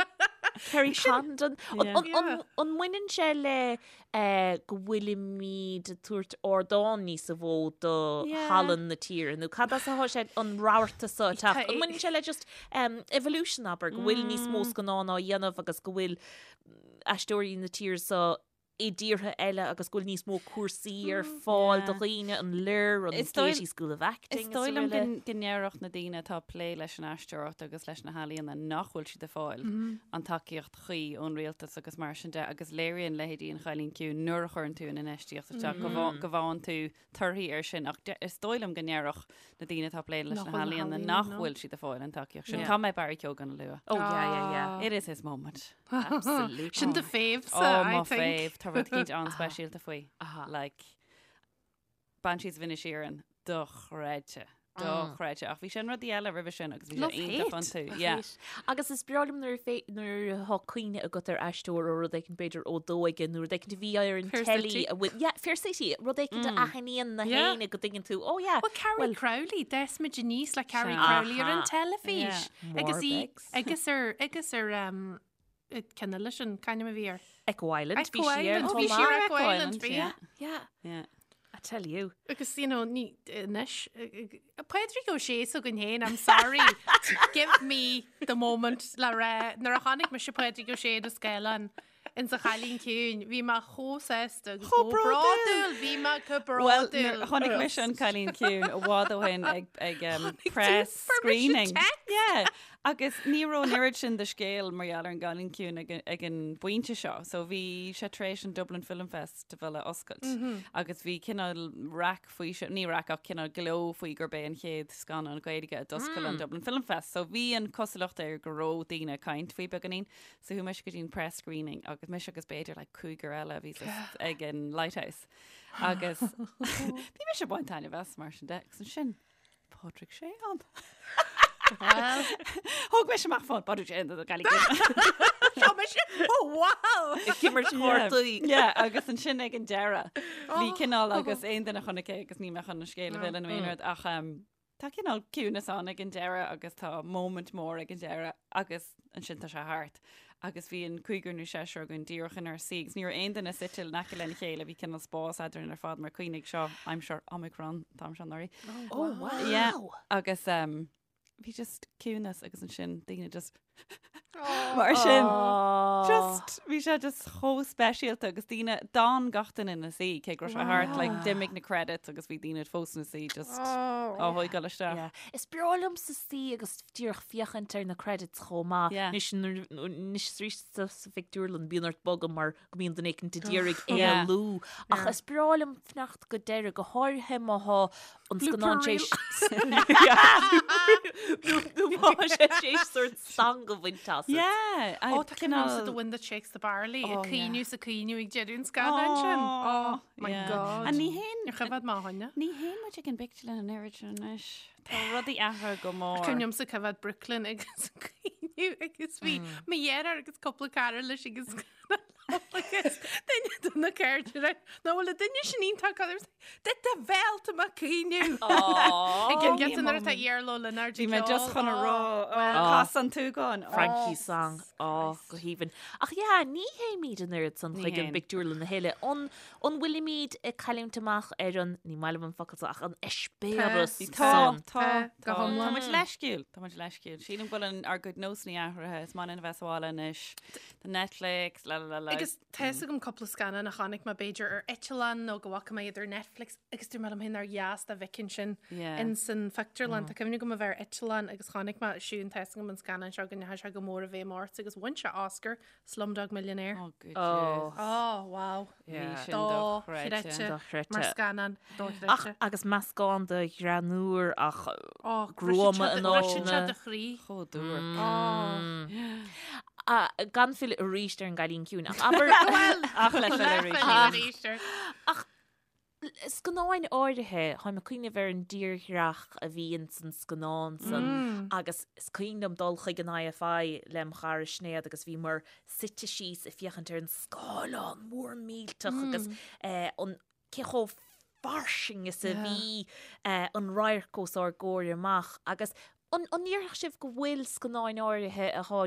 Kerry Condon. An mbaineann sé le go bhfuilimid ag tabhairt ardán níos mó do thallann na tíre nó cad as atá sé an rabharta seo ag teacht? An mbaineann sé le just evolution abair go bhfuil níos mó scannán á dhéanamh agus go bhfuil aisteoirí na tíre seo i dtíortha eile agus go bhfuil níos mó cúrsaí ar fáil do dhaoine, an Lir, an Gaiety School of Acting Is dóigh liom go ndéarfadh na daoine atá ag plé leis an aisteoireacht agus leis na healaíona nach bhfuil siad ag fáil an tacaíocht chuí ón rialtas agus mar sin de agus léiríonn leithéidí An Chailín Ciúin nuair a chuireann tú an infheistíocht isteach go bhfaigheann tú torthaí air sin ach is dóigh liom go ndéarfadh na daoine atá ag plé leis na healaíona nach bhfuil siad ag fáil an tacaíocht sin. Caithfidh mé Barry Keoghan a lua. Oh yeah, yeah, yeah. It is his moment. Absolutely. Sin do fave sa, oh, I think. fave. Tá rud éicint an-speisialta faoi. Like, Banshees of Inisherin, dochreidte. Dochreidte. Ach bhí sé in rudaí eile roimhe sin agus bhí sé iontach iontu. Yeah. Agus is breá liom nuair a nuair atá cuimhne agat ar aisteoir ó rud éicint b'fhéidir ó d'óige nó rud éicint a bhí ar an Fair teilí City. a bhfuil yeah, Fair City, rud éicint a aithníonn na Yeah. héinne go dtuigeann tú, oh yeah, Well, Carrie well, Crowley, d'fhás muid aníos le Carrie Sea. Crowley ar an Aha. teilifís. Yeah. Agus í, Warbegs. agus ar, agus ar, um, ceann eile sin, c'ainm a bhí air? Echo Island, Echo bhí sí ar Island, chomh bhí sí ar maith. Echo Island, bhí. yeah. Yeah, Yeah. I tell you. Agus, you know, ní, anois, Pádraig Ó Sé s'againn féin, I'm sorry, give me the moment le rá, nuair a chonaic mise Pádraig Ó Sé ar an scáileán in sa Chailín Ciúin, bhí mé chomh sásta agus Chomh chomh bródúil. bródúil, bhí mé chomh Well, bródúil. chonaic mise an Cailín Ciúin i bhfad ó shin ag, ag um, Chonaic tú press permission screening. text. Yeah. Agus ní raibh an oiread sin de scéal mar gheall ar an gCailín Ciúin ag, ag an bpointe seo. So bhí sé tar éis an Dublin Film Festival a oscailt. Agus bhí cineál raic faoi seo, ní raic ach cineál gleo faoi gurb é an chéad scannán Gaeilge a d'oscail an Dublin Film Fest. So bhí an cosúlacht air go raibh daoine ag caint faoi beagáinín. So chuaigh mise go dtí an press screening agus mise agus b'fhéidir like cúigear eile a bhí sa- ag an Lighthouse. Agus bhí mise ag baint taitneamh as mar sin de agus ansin Pádraig Sé ann. Well, Thóg mise amach fón Pádraig Sé an Gaillimh. Seo mise, oh wow! Ag imirt cártaí. Yeah, agus ansin ag an deireadh bhí cineál agus aon duine a chonaic é agus níl mé chun an scéal a mhilleadh nó aon rud ach um, tá cineál ciúnas ann ag an deireadh agus tá moment mór ag an deireadh agus ansin tá sé thart. Agus bhí an cúigear nó seisear againn díreach inár suí agus ní raibh aon duine suite in aice lena chéile, bhí cineál spás eadrainn ar fad mar cuimhnigh seo aimsir Omicron an t-am seo anuraidh. Oh wow! Yeah. Agus um, bhí just ciúnas agus ansin daoine just mar sin. Just bhí sé just chomh speisialta agus daoine d'fhan gach duine ina suí cé go raibh sé thart like d'imigh na credits agus bhí daoine fós ina suí just á thógáil isteach. Yeah. Is breá liomsa suí agus díreach féachaint ar na credits chomh maith. Yeah. Anois nuair- anois arís sa sa phictiúrlann bíonn ort bogadh mar go mbíonn duine éicint ag iarraidh Yeah. éalú. Ach is breá liom fanacht go deireadh, go háirithe má thá an scannán Blooper tar éis nó má thá sé tar éis sórt stangadh a bhaint asat. Yeah, I Ó, tá cineál- The Wind That Shakes the Barley, Oh, ag caoineadh yeah. is ag caoineadh ag deireadh an scannáin sin. Oh, my yeah. God. And ní haon Níor choimhéad mé a choinne. ní théann muid ag an bpictiúrlann an oiread sin anois. Tá rudaí athraithe go mór. Cuimhin liomsa coimhéad Brooklyn agus ag caoineadh agus bhí mo dheartháir agus cúpla cara leis agus Agus duine de na cairde nach bhfuil an duine sin iontach cad De do bhéal tá mé ag caoineadh. Ag an gcinnte nuair atá Iarla Ó Lionáird Bhí mé just chun a rá cas an tsúgáin. Frankie song á go haoibhinn. Ach yeah, ní théimid an oiread san chuig an bpictiúrlann a thuilleadh. An an bhfuilimid ag cailliúint amach ar an, ní maith liom an focal seo, ach an eispéireas Tá, san? tá, Go tá. hiomlán. Tá muid leisciúil, tá muid leisciúil. Sílim go bhfuil an, ár gcuid nósanna athraithe, is maith linn a bheith sa bhaile anois. Tá Netflix, la la la la. Agus tá fhios agam cúpla scannán a chonaic mé b'fhéidir ar eitleán nó go bhfaca mé iad ar Netflix agus dúirt mé liom féin nár dheas dá bhfeicfinn sin Yeah. in san phictiúrlann. Tá cuimhne agam a bheith ar eitleán agus chonaic mé Siún tá fhios agam an scannán seo go ndeachaigh sé go mór i bhfeidhm ort agus bhain sé Oscar, Slumdog Millionaire. Oh, good Oh. years. Oh, wow. Bhí sin Dochreidte. dochreidte. Dochreidte. Mar scannán Ach dochreidte. agus meascán de ghreann úr ach Oh, gruama in Briseann sé áiteanna. do chroí. Chomh duairc. Oh. Ah, gan filleadh arís ar an gCailín Ciúin ach abair Ach le filleadh arís. Arís air. Ach scannáin áirithe, táim ag cuimhneamh ar an dtírdhreach a bhí ins an scannán san agus is cuimhin liom dul chuig an IFI lem chara Sinéad agus bhíomar suite síos ag féachaint ar an scáileán mór millteach agus eh, an cé chomh fairsing is a bhí eh, an radharc os ár gcomhair amach agus an an ndéarfadh sibh go bhfuil scannáin áirithe atá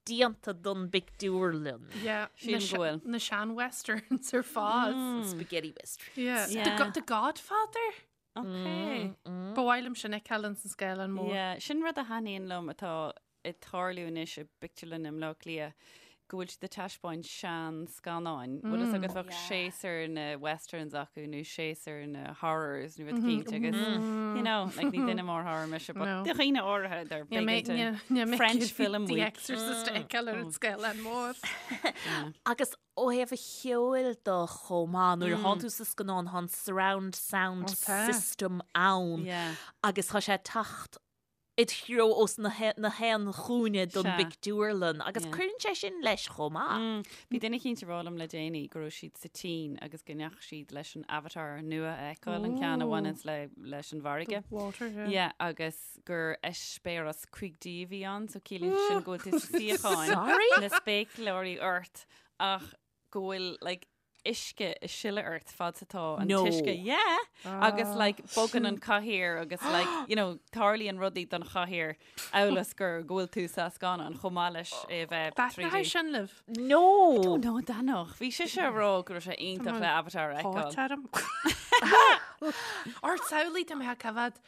déanta don bpictiúrlann? Yeah, Sílim go bhfuil. Na sean-westerns ar fad. Spaghetti westerns. Yeah. Yeah. The, Go- The Godfather? Okay. Ba mhaith liom sin a fheiceáil ins an scáileán mór. Yeah, sin rud a thaitníonn liom atá ag tarlú anois i bpictiúrlann i mBleá Cliath, go bhfuil siad ag taispeáint sean-scannáin. Bhfuil fhios agat bheadh séasúr na westerns acu nó séasúr na horrors nó rud eicínt agus, you know, like ní duine mór horror mise, but No. do dhaoine áirithe they're big into French film The week. Exorcist a fheiceáil ar an scáileán mór. Agus ó thaobh an cheoil de chomh maith, nuair atá tú sa scannán, tá an surround sound Ó, tá. system ann Yeah. agus tá sé ag teacht id threo ós na haon chúinne don bpictiúrlann agus cuireann sé sin leis chomh maith. Bhí duine eicínt ag rá liom le déanaí go raibh siad sa tSín agus go ndeachaigh siad leis an Avatar nua a fheiceáil, an ceann a bhaineanns le leis an bhfarraige. Water, yeah. Yeah, agus gur eispéireas 5D a bhí ann, so ciallaíonn sin go bhfuil tú sa suíochán, na spéacláirí ort ach go bhfuil like uisce ag sileadh ort fad is atá an No. t-uisce. Yeah! Agus like bogann an cathaoir agus like, you know, tarlaíonn rudaí don chathaoir amhail is gur go bhfuil tú sa scannán chomh maith leis é a bheith Taitneoidh 3D. sin libh. No! Oh no, Danach. Bhí sise ag rá go raibh sé iontach le Avatar a fheiceáil. Háit orm. Ort samhlaigh tá mé ag coimhéad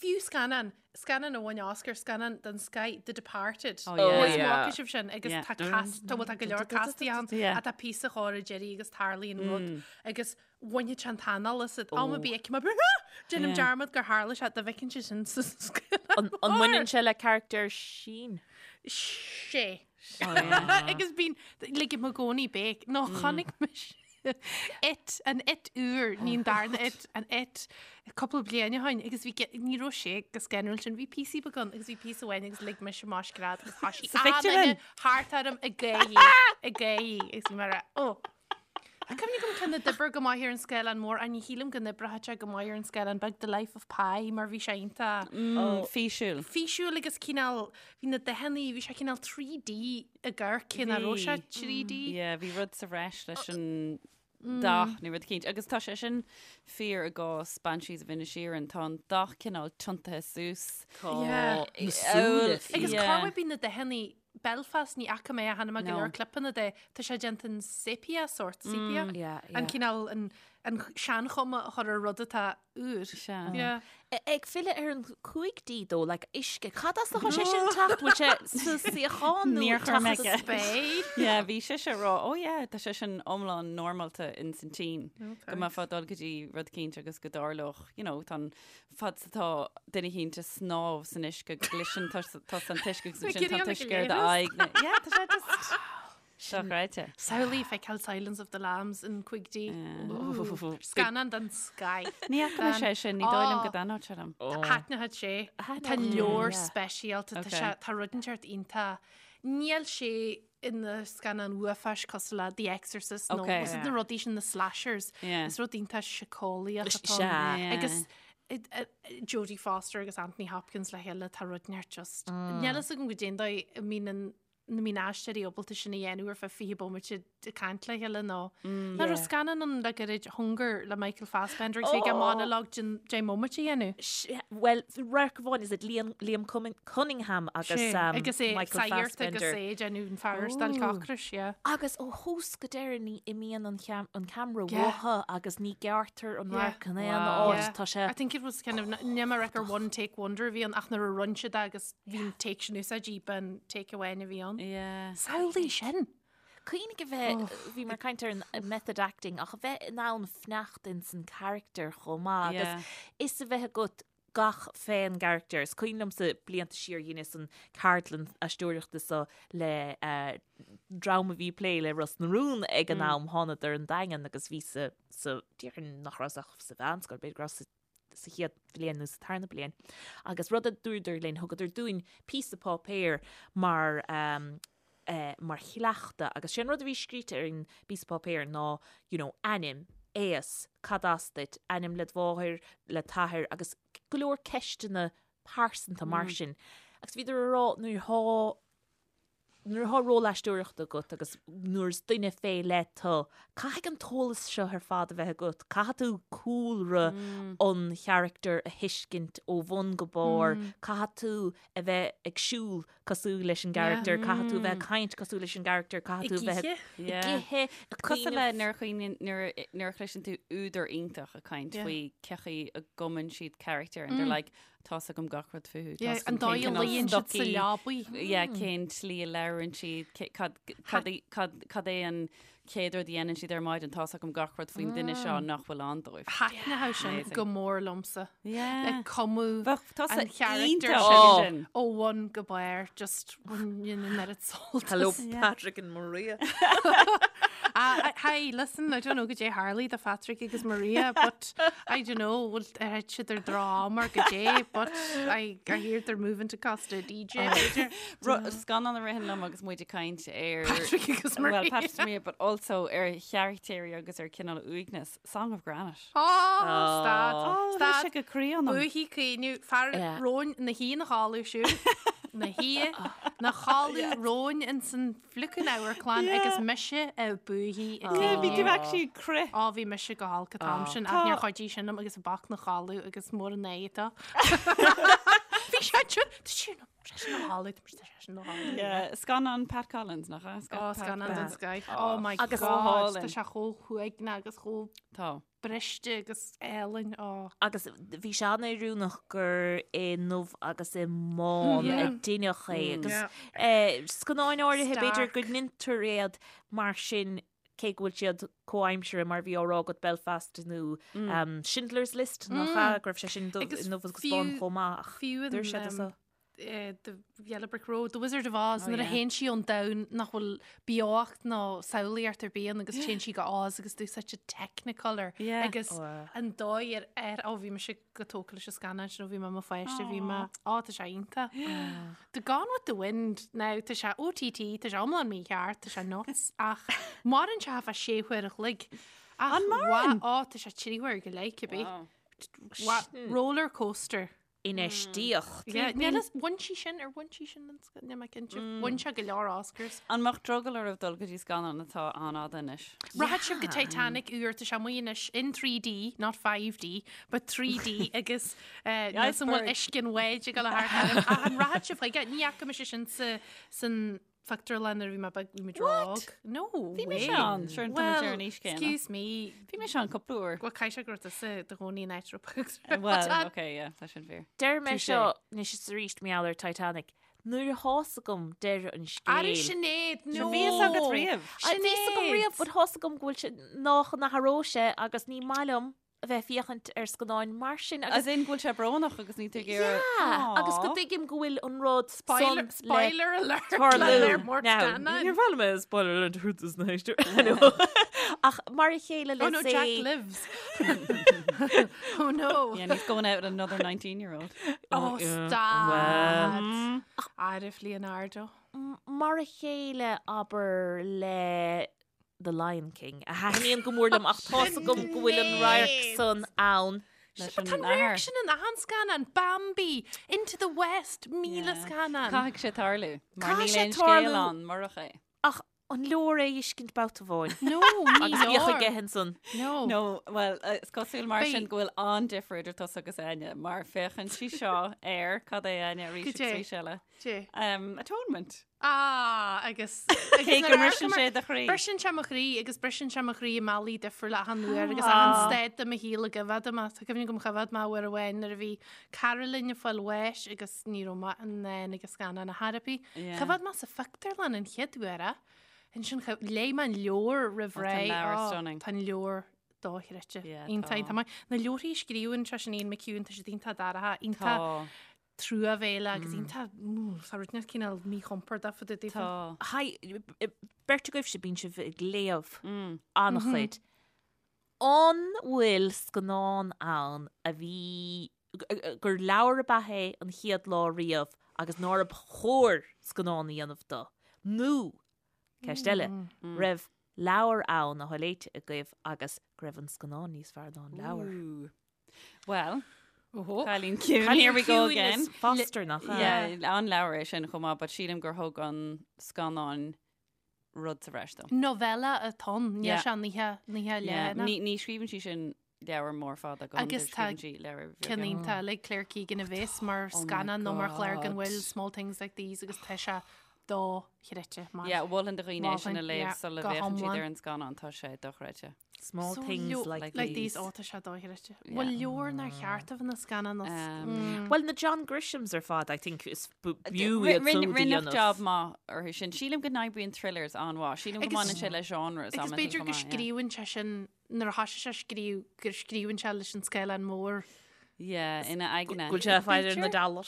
fiú scannán Scannán a bhain Oscar, scannán den scoth, The Departed. Oh, yeah. Is yeah. bhfaca sibh sin agus Yeah. tá cast, tá bhfuil tá go leor castaí ann Yeah. ach tá píosa chóir ag deireadh agus tarlaíonn rud agus bhainfeadh sé an t-anáil asat. Am ar bith ag mar déanaim Yeah. dearmad gur tharla sé dá bhfeiceann sé sin sa scannán. An an mbaineann sé le character Sheen? Sé. Oh, yeah. Agus bíonn ligim i gcónaí béic. Nó chonaic mise It, an It úr, ní an darna It, an It, cúpla bliain ó shin agus bhí ní raibh sé go scanrúil sin, bhí píosaí beag ann agus bhí píosa amháin agus lig mise mo scread agus thoisigh Sa phictiúrlann? an-duine thart orm ag gáirí, ag gáirí agus bhí mé ag rá, ó. Tá cuimhne agam ceann a d'oibrigh go maith ar an scáileán mór ach ní shílim go n-oibreoidh sé go maith ar an scáileán beag, The Life of Pi, mar bhí sé iontach Físiúil. físiúil agus cineál, bhí na dathanna, bhí sé cineál 3D ag amharc, cé nach raibh sé 3D. Yeah, bhí rud sa bhreis leis an dath nó rud eicínt. Agus tá sé sin fíor i gcás Banshees of Inisherin, tá an dath cineál tiontaithe suas. Tá Yeah. na súile Agus Agus Yeah. cá bhfuil bíonn na dathanna Belfast ní fhaca mé ach chonaic mé go No. leor clipeanna de, tá sé déanta in sepia sort, sepia. Yeah, An yeah. cineál an an seanchuma a chur ar rud atá úr. Sea. Yeah. Ag filleadh ar an 5D though, like uisce, cad as atá sé sin teacht? Bhfuil sé sa suíochán nó Níor chuir mé teacht ceist. Spéir. Yeah, bhí sise ag rá, oh yeah, tá sé sin iomlán normálta in san tSín. Go mbeifeá ag dul go dtí rud eicínt agus go dtarlódh, you know, tá an fad is atá duine eicínt ag snámh san uisce, go gcloiseann tusa an t-uisce agus ansin tá an t-uisce ar d'aghaidh. Yeah, tá sé just dochreidte. Samhlaigh feiceáil Silence of the Lambs in 5D. Scannán den scoth. Ní fhaca mé sé sin, ní dóigh liom go dtaitneodh sé liom. Thaitneodh sé. Tá leor speisialta, tá sé, tá rud inteacht iontach. Níl sé ina scannán uafáis cosúil le The Exorcist nó Okay. na rudaí sin na slashers. Yeah. Is rud iontach síceolaíoch atá Sea. ann. Yeah. Agus Jodie Foster agus Anthony Hopkins le chéile tá rud inteacht just. Níl a fhios agam goidé an dóigh a mbíonn an. nach mbíonn aisteoirí ábalta sin a dhéanamh ar feadh 20 bomaite ag caint le chéile nó Nach raibh scannán ann le gairid Hunger le Michael Fassbender agus bhí aige monologue den 10 mbomaite a dhéanamh. Bhuel, radharc amháin is it Liam, Liam Cunningham agus um, agus é Michael saghart agus Fassbender. é ag déanamh an fear ar stailc ocrais, yeah. Agus ó thús go deireadh ní imíonn an, cheam, an ceamara Yeah. uathu agus ní gearrtar an Yeah. radharc in aon Wow. áit. Yeah. Tá sé I think it was kind of, níl mé ag rá gur one take wonder a bhí ann ach nuair a rinne siad é agus bhí an take sin úsáidte b'in take amháin a bhí ann. Yeah. Samhlaigh sin! Cuimhnigh a bheith, bhí mé ag caint ar an method acting, ach a bheith in ann fanacht ins an character chomh maith agus fhios a bheith agat gach fén gcarachtar. Is cuimhin liomsa blianta siar dheineas an ceardlann aisteoireachta seo le dream a bhí ag plé le Ros na Rún ag an am, thánadar ón Daingean agus bhí sa, sa, déarfainn nach rabhas ach sa mheánscoil, b'fhéidir go rabhas sa sa chéad bhliain nó sa tarna bliain. Agus rud a dúradar linn, thugadar dúinn píosa páipéir mar um, eh, mar chleachtadh agus sé an rud a bhí scríte ar an bpíosa páipéir ná you know, ainm, aois, cad as duit, ainm le do mháthair, le t'athair agus go leor ceisteanna pearsanta mar mm. sin. Agus bhíodar a rá nuair thá Nuair atá ról aisteoireachta agat agus nuair is duine fé leith tú, caithfidh an t-eolas seo ar fad a bheith agat. Caithfidh tú cúlra an charachtair a thuiscint ó bhun go barr, caithfidh tú a bheith ag siúl cosúil leis an gcarachtar, caithfidh tú a bheith ag caint cosúil leis an gcarachtar, caithfidh tú a bheith ag ithe, ag Cosúil le nuair a chuimhníonn, nuair a chloiseann tú údar iontach ag caint faoi cén chaoi a gcumann siad carachtar and they're like, Tá's agam gach rud fúthu. Yeah, an dóigh a luíonn siad sa leabaidh. Yeah, cén tslí a labhrann siad, cad, cad, cad, cad é an chéad rud a dhéanann siad ar maidin, tá's agam gach rud faoin duine seo nach bhfuil ann dóibh. Thaitneodh sin Amazing. go mór liomsa. Yeah. Le cumadh Bheadh tusa an charachtar iontach sin sin. ó bhun go barr, just bhain an oiread sult Hello, as. Patrick and Maria. Ah, hi, listen, I don't know goidé tharlaigh do Phatrick agus Maria, but I don't know, bhfuil ar thit siad ar droch-am or goidé, but I, I hear they're moving to Costa DJ, b'fhéidir. Ru- Scannán a ritheann liom agus muid ag caint ar Patrick agus Well, Maria. Patrick and Maria, but also ar charachtéirí agus ar cineál uaigneas. Song of Granite. Oh, stad, Oh, tá stad. sé go croí ionam. Buaithí caoineadh, fear Yeah. romhainn ina shuí ina chodladh siúd, ina shuí ina chodladh romhainn ins an fliucin amharclann agus mise ag buaithí ag Yeah, bhí tú caoineadh. actually ag crith. Á, bhí mise go holc an t-am sin, ach níor chuidigh sin liom agus an boc 'na chodladh agus mór an aghaidh atá. Bhí sé sin, tá sé sin, tá sé sin ina chodladh, tá sé sin ina chodladh. Yeah, scannán Pat Collins, nach ea? Ó, scannán den scoth. Oh my Agus- God, tá sé chomh huaigneach agus chomh Tá. briste agus álainn, ó. Agus bhí sé an-oiriúnach gur i ndubh agus i mbán a deineadh é agus scannáin áirithe b'fhéidir go ndeintear iad mar sin cé go bhfuil siad comhaimseartha mar bhí á rá agat Belfast nó Schindler's List nach ea go raibh sé sin i ndubh agus bán chomh maith ach dúirt siad so. The Yellow Brick Road, The Wizard of Oz, nuair a théann sí ón domhan nach bhfuil beocht ná samhlaíocht ar bith ann agus téann sí go Oz agus d'úsáid siad Technicolor agus an dóigh ar ar ó bhí mise go tógtha leis an scannán sin ó bhí mé i mo pháiste bhí mé á tá sé iontach. The Gone with the Wind now tá sé OTT tá sé iomlán mícheart tá sé nuts ach maireann sé feadh sé huaire a chloig. Ach An maireann? Á tá sé trí huaire go leith cibé. Roller coaster. Infheistíocht. Yeah, níl fhios, bhain sí sin, ar bhain sí sin an sc- níl mé cinnte. Bhain sé go leor Oscars. An mbeadh drogall oraibh dul go dtí scannán atá an-fhada anois? Rachaidh sibh go Titanic úr, tá sé amuigh anois in 3D, not 5D, but 3D agus eh, níl fhios an bhfuil Iceberg. uisce an bháid ag dul thart orm. Ach an rachaidh sibh chuige? Ní fhaca mise sin sa, san phictiúrlann nuair a bhí mé beag, bhí muid What? óg. No Bhí mise way. ann, sure, tá muid ar an aois céanna. Excuse me. Bhí mise ann cúpla uair. Bhuel, caithfidh sé go raibh tusa i do chónaí in áit raibh pictiúr. Well, okay, yeah, tá sin fíor. Deir mé Touché. seo anois is arís mar gheall ar Titanic. Nuair atá's agam deireadh an scéil. Arú Sinéad, no! Bhí fhios agat riamh. Bhí fhios agam riamh, but tá's agam go bhfuil sé nach n-athróidh sé agus ní maith liom a bheith ag féachaint ar scannáin mar sin agus. As in go bhfuil sé brónach agus níl tú ag iarraidh. Yeah, agus go dtuigim go bhfuil an rud Spoiler, san le spoiler alert tarlú. le léir mór Now, scannáin. níor mhaith liom é spoiler alert a thabhairt dos na héisteoirí. Ach mar a chéile Oh le no, say Jack lives. Oh no. Yeah, and he's going out with another 19 year old. Oh, yeah. stad. Arif Leonardo. Mar a chéile abair le The Lion King, a thaitníonn go mór liom ach tá's agam go bhfuil an radharc san ann. Leis But an tá an radharc athair. sin in achan scannán, Bambi, Into the West, 1000 scannán. Caithfidh sé tarlú, mar Caithfidh níl sé aon scéal tarlú. ann murach é. Ach an leor é a fheiscint babhta amháin? No, ní Agus bhíodh leor. aige ansan. No. No, well, is cosúil mar Beidh- sin go bhfuil an-difear idir tusa agus Áine, mar féachann sí seo ar, cad é Áine, arís Cad agus é? arís eile. Dé. Um, atonement. Ah, agus... Cé go mbriseann sé do chroí. Briseann sé mo chroí agus briseann sé mo chroí i mbealaí difriúla achan uair agus achan staid de mo shaol a gcoimhéad mé. Tá cuimhne agam choimhéad mé uair amháin nuair a bhí cara linn ag fáil bháis agus ní raibh mé in ann ag an scannán ar chor ar bith. Yeah. Choimhéad mé sa phictiúrlann an chéad uair é. Ansin léigh mé an leabhar roimh Oh, tá ré. an leabhar Oh, stunning. Tá an leabhar dochreidte. Yeah, Iontach, tá. tá maith. Na leabharthaí a scríobhann sé sin Ian McEwan, tá siad iontach dorcha, iontach Tá. truamhéalach agus iontach, tá rud inteacht cineál míchompordach fá dtaobh daofa. Tá. Hi, beirt agaibhse bíonn sibh ag léamh an-chuid. An bhfuil scannán ann a bhí, gur leabhar ab ea é an chéad lá riamh agus nárb chóir scannán a dhéanamh dó? Nó, ceist eile, raibh leabhar ann atá léite agaibh agus go raibh an scannán níos fearr ná an leabhar? Well, Oho. Cailín Ciúin, here we go again. Is Foster nach ea? Yeah, an leabhar é sin chomh maith, but sílim gur thug an scannán rud sa bhreis dó. Novella atá ann, níl Yeah. sé nithe nithe Yeah, leathana. Ní ní scríobhann sí sin leabhar mór fada go Agus tá scríobhann sí leabhar Ceann bheaga. iontach le Claire Keegan a bheas mar Oh my scannán nó mar chlár gan God. bhfuil Small Things Like These agus tá sé dochreidte mar. Yeah, mholfainn do dhaoine é sin a Mholfainn, léamh yeah, sula go bhféachann siad hiomlán. ar an scannán, tá sé dochreidte. Small So things leo- like, like Like these. these, ó tá sé dochreidte. Yeah. Bhfuil leabhar nár cheart a bheith ina scannán as. Um, Well, na John Grishams ar fad, I think, is b'fhiú iad Rinne súd a rinneadh dhéanamh. job maith orthu sin. Sílim go n-oibríonn thrillers an-mhaith. Sílim go Agus- mbaineann sé le genres Agus amantaí b'fhéidir chomh go maith, yeah. scríobhann sé sin nuair a thosaigh sé a scríobh go scríobhann sé leis an scáileán mór. Yeah, ina aigne. Go bhfuil sé fáil ar na dollars.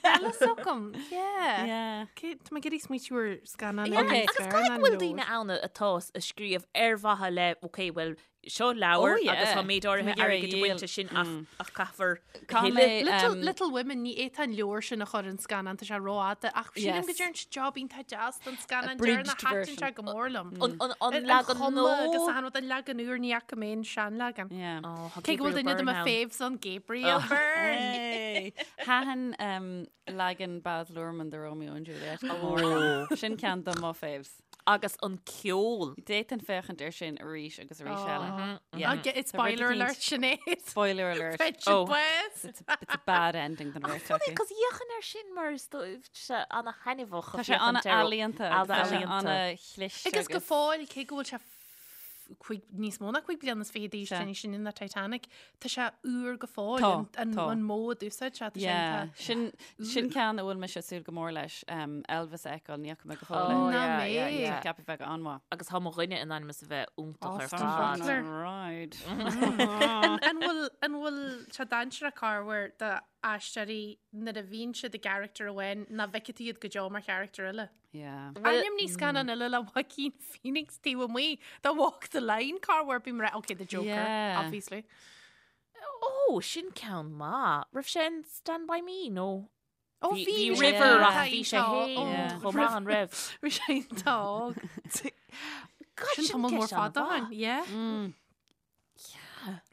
Eile agam, yeah. Yeah. Cé tá mé ag iarraidh smaoitiú ar scannán Yeah, Okay. eile níos Agus fearr caithfidh ná go bhfuil leabhar. daoine ann atá ag scríobh ar mhaithe le, ok, well, seo leabhar Oh, yeah. agus tá méid áirithe Tá mé ag iarraidh airgid a dhíol. bhaint as sin ach ach caithfear Caithfidh thuilleadh. mé, Little, um, Little Women, ní fhéadfá an leabhar sin a chur in scannán, tá sé rófhada, ach sílim Yes. go dtearn siad job iontach deas don scannán bridged deireanach, thaitin version. sé go mór liom. An, an, an An leagan chuma agus nua. an rud an leagan úr ní fhaca mé an seanleagan. Yeah. Oh, tá Cé go bhfuil Gabriel duine de Byrne mo ann. faves ann Gabriel Byrne. Hey. Thaitin um, leagan Baz Luhrmann de Romeo and Juliet go mór liom. Sin ceann de mo faves. Agus an ceol. D'fhéadfainn féachaint air sin arís agus arís Oh. eile. Yeah. I'll get it, Tá rud spoiler eicínt- alert, Sinéad. Spoiler alert. Friendship Oh. West. It's a, it's a bad ending don bheirt acu. Cos d'fhéachfainn air sin mar is dóibh sé ana-thaitneamhach Tá sé ana-ealaíonta agus tá sé ana-chliste Agus go fóill cé go bhfuil sé cuig, níos mó ná cuig bliana is fiche d'aois Sea. sin sin na Titanic, tá sé úr go fóill Tá, an, an, tá. an modh a d'úsáid sé, tá sé Yeah, iontach. sin sin ceann a bhfuil mise ag súil go mór leis um, Elvis a fheiceáil ní fhaca mé go fóill é. Oh, Ná yeah, mé. yeah, yeah. Ceapaim bheith an-mhaith. Agus tá mo dhuine in ainm is a bheith iontach ar Austin fad. Butler. Right. An, an bhfuil an bhfuil sé dainséarach corruair d'aisteoirí nuair a bhíonn siad i gcarachtar amháin nach bhfeicfidh tú iad go deo mar charachtar eile? Yeah. Ainmnigh scannán eile le Joaquin Phoenix taobh amuigh de Walk the Line corruair bím ag rá okay the Joker Yeah. obviously. Ó, sin ceann maith. Raibh sé in Stand By Me nó? Ó Bhí bhí bhí bhí sé River Yeah. ach bhí sé iontach, féin ó, Yeah. chomh maith an raibh. Bhí sé iontach. God, Sin tamall mór ceist fada an-mhaith. ann, yeah. Mm.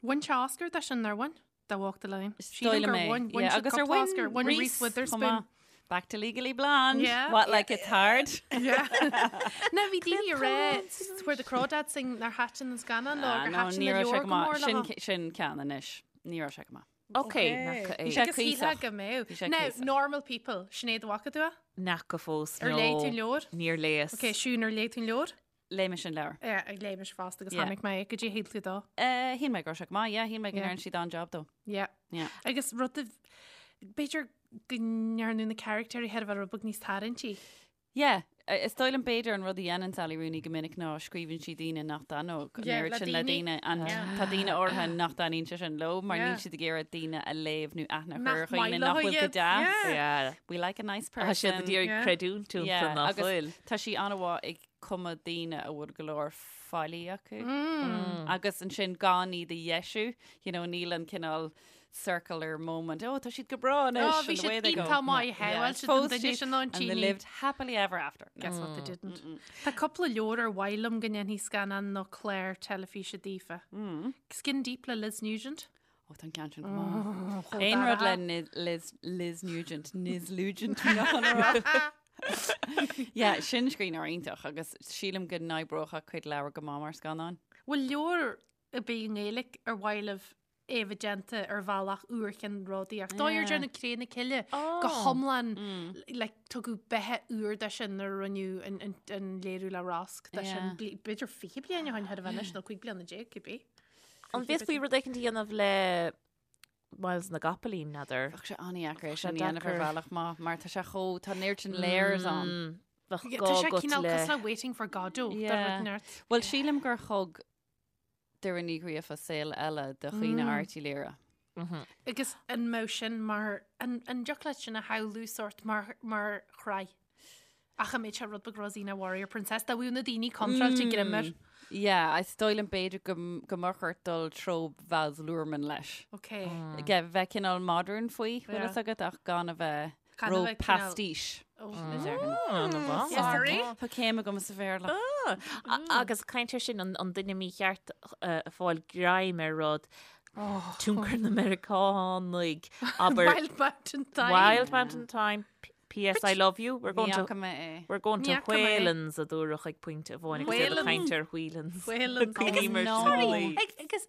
Bhain sé Oscar de sin ar bhain? De Walk the Line. Is Sílim dóigh liom gur é. bhain, bhain Yeah, siad agus ar cúpla bhain Oscar, bhain Reese Reese chomh Witherspoon. maith. Back to Legally Blonde. Yeah. What, like it's hard? Yeah. Na bhí daoine ag rá Where the Crawdads Sing nár thaitin an scannán leo Ah, gur no, thaitin ní na raibh sé leabhar go go maith. mór Sin, leo. sin ceann anois. Ní raibh sé go maith. Ok, nach é. Bhí sé Agus shílfeá cuíosach. go mbeadh. Bhí sé Now, cuíosach. normal people, Sinéad an bhfaca tú é? Nach go fós Ar léigh tú an leabhar? Níor léas. Ok, Siún ar léigh tú an leabhar? Léigh mise an leabhar. Yeah, ag léigh mise fosta agus Yeah. chonaic mé go dtí shíl tú dó. Uh, shíl mé go raibh sé go maith, yeah, shíl mé go Yeah. ndearna siad an-job dó. Yeah. Yeah. Agus rud a b'fhéidir go ndearnadh na caractéirí thar a bheith rud beag níos tarraingtí. Yeah, is dóigh liom b'fhéidir an rud a dhéanann Sally Rooney go minic ná scríobhann sí daoine nach dtaitneodh an Yeah, oiread le sin le daoine. daoine and Yeah. tá daoine áirithe nach dtaitníonn sé sin leo mar Yeah. níl siad ag iarraidh daoine a léamh nó aithne a chur Nach ar dhaoine maith nach leo bhfuil go iad. deas. Yeah. Yeah. We like a nice Tá siad person. ag iarraidh Yeah. creidiúint iontu Yeah, nach agus bhfuil. Tá sí an-mhaith ag cumadh daoine a bhfuil go leor faillí acu. Mm. Agus ansin gan iad a dheisiú, you know, níl an cineál circular moment. Oh, tá siad go breá anois. Oh, bhí and away siad they go. iontach maith, Yeah, yeah, well, siad an phós duine siad sin ná an And they tíní. lived happily ever after. No. Guess what they didn't. Tá cúpla leabhar ar mhaith liom go ndéanfaí scannán nó clár teilifíse daofa. Mm. Skin Deep le Liz Nugent. Ó tá an ceann sin go maith. Aon rud le Liz, Liz Nugent, Niz Nugent Yeah, sin scríbhneoir iontach agus sílim go n-oibreodh a cuid leabhar go maith mar scannán. Bhfuil leabhar ar bith i nGaeilge ar mhaith libh é a bheith déanta ar bhealach úr cheannródaíoch. Dóigh ar déanamh Cré na Cille go hiomlán like, tugadh beatha úr de sin nuair a rinneadh an, an, an léiriú le Rosg de sin. B'fhéidir 20 bliain ó shin thar a bheith anois nó 15 bliana, cibé. An bhféadfaí rud éicint a dhéanamh le Myles na gCopaleen, n'fheadar? Bheadh sé an-dheacair é sin a dhéanamh ar bhealach maith mar tá sé chomh, tá an oiread sin layers ann. Bheadh Tá gá sé agat cineál le... cosúil le Waiting for Godot de rud neart. Bhuel, sílim gur thug Doireann Ní Ghríofa saol eile do Chaoineadh Airt Uí Laoire. Agus an mbeadh sin mar, an dtiocfadh leat sin a shamhlú sórt mar, mar shraith? Ach an mbeadh sé rud beag Rosina Warrior Princess, dá bhfuil na daoine contráilte greim air. Yeah, is dóigh liom b'fhéidir go, go mbeadh ort dul treo Baz Luhrmann leis. Ok. Yeah, bheith cineál modern faoi, bhfuil fhios agat, ach gan a bheith Gan a ró bheith cineál- pastiche. Oh. Sorry. Tá céim agam sa Bhéarla. Agus caint ar sin an duine mícheart ag fáil greim ar rud tionchar na Meiriceánaigh abair Wild Mountain Thyme. Wild Mountain Thyme P.S. I love you. We're going Ní to fhaca mé é. We're going to Ní fhaca mé é. Whelan's a dúradh ag pointe amháin agus iad ag caint ar Whelan's. Whelan's. Cuimhním ar Agus sin no. i gcónaí. Agus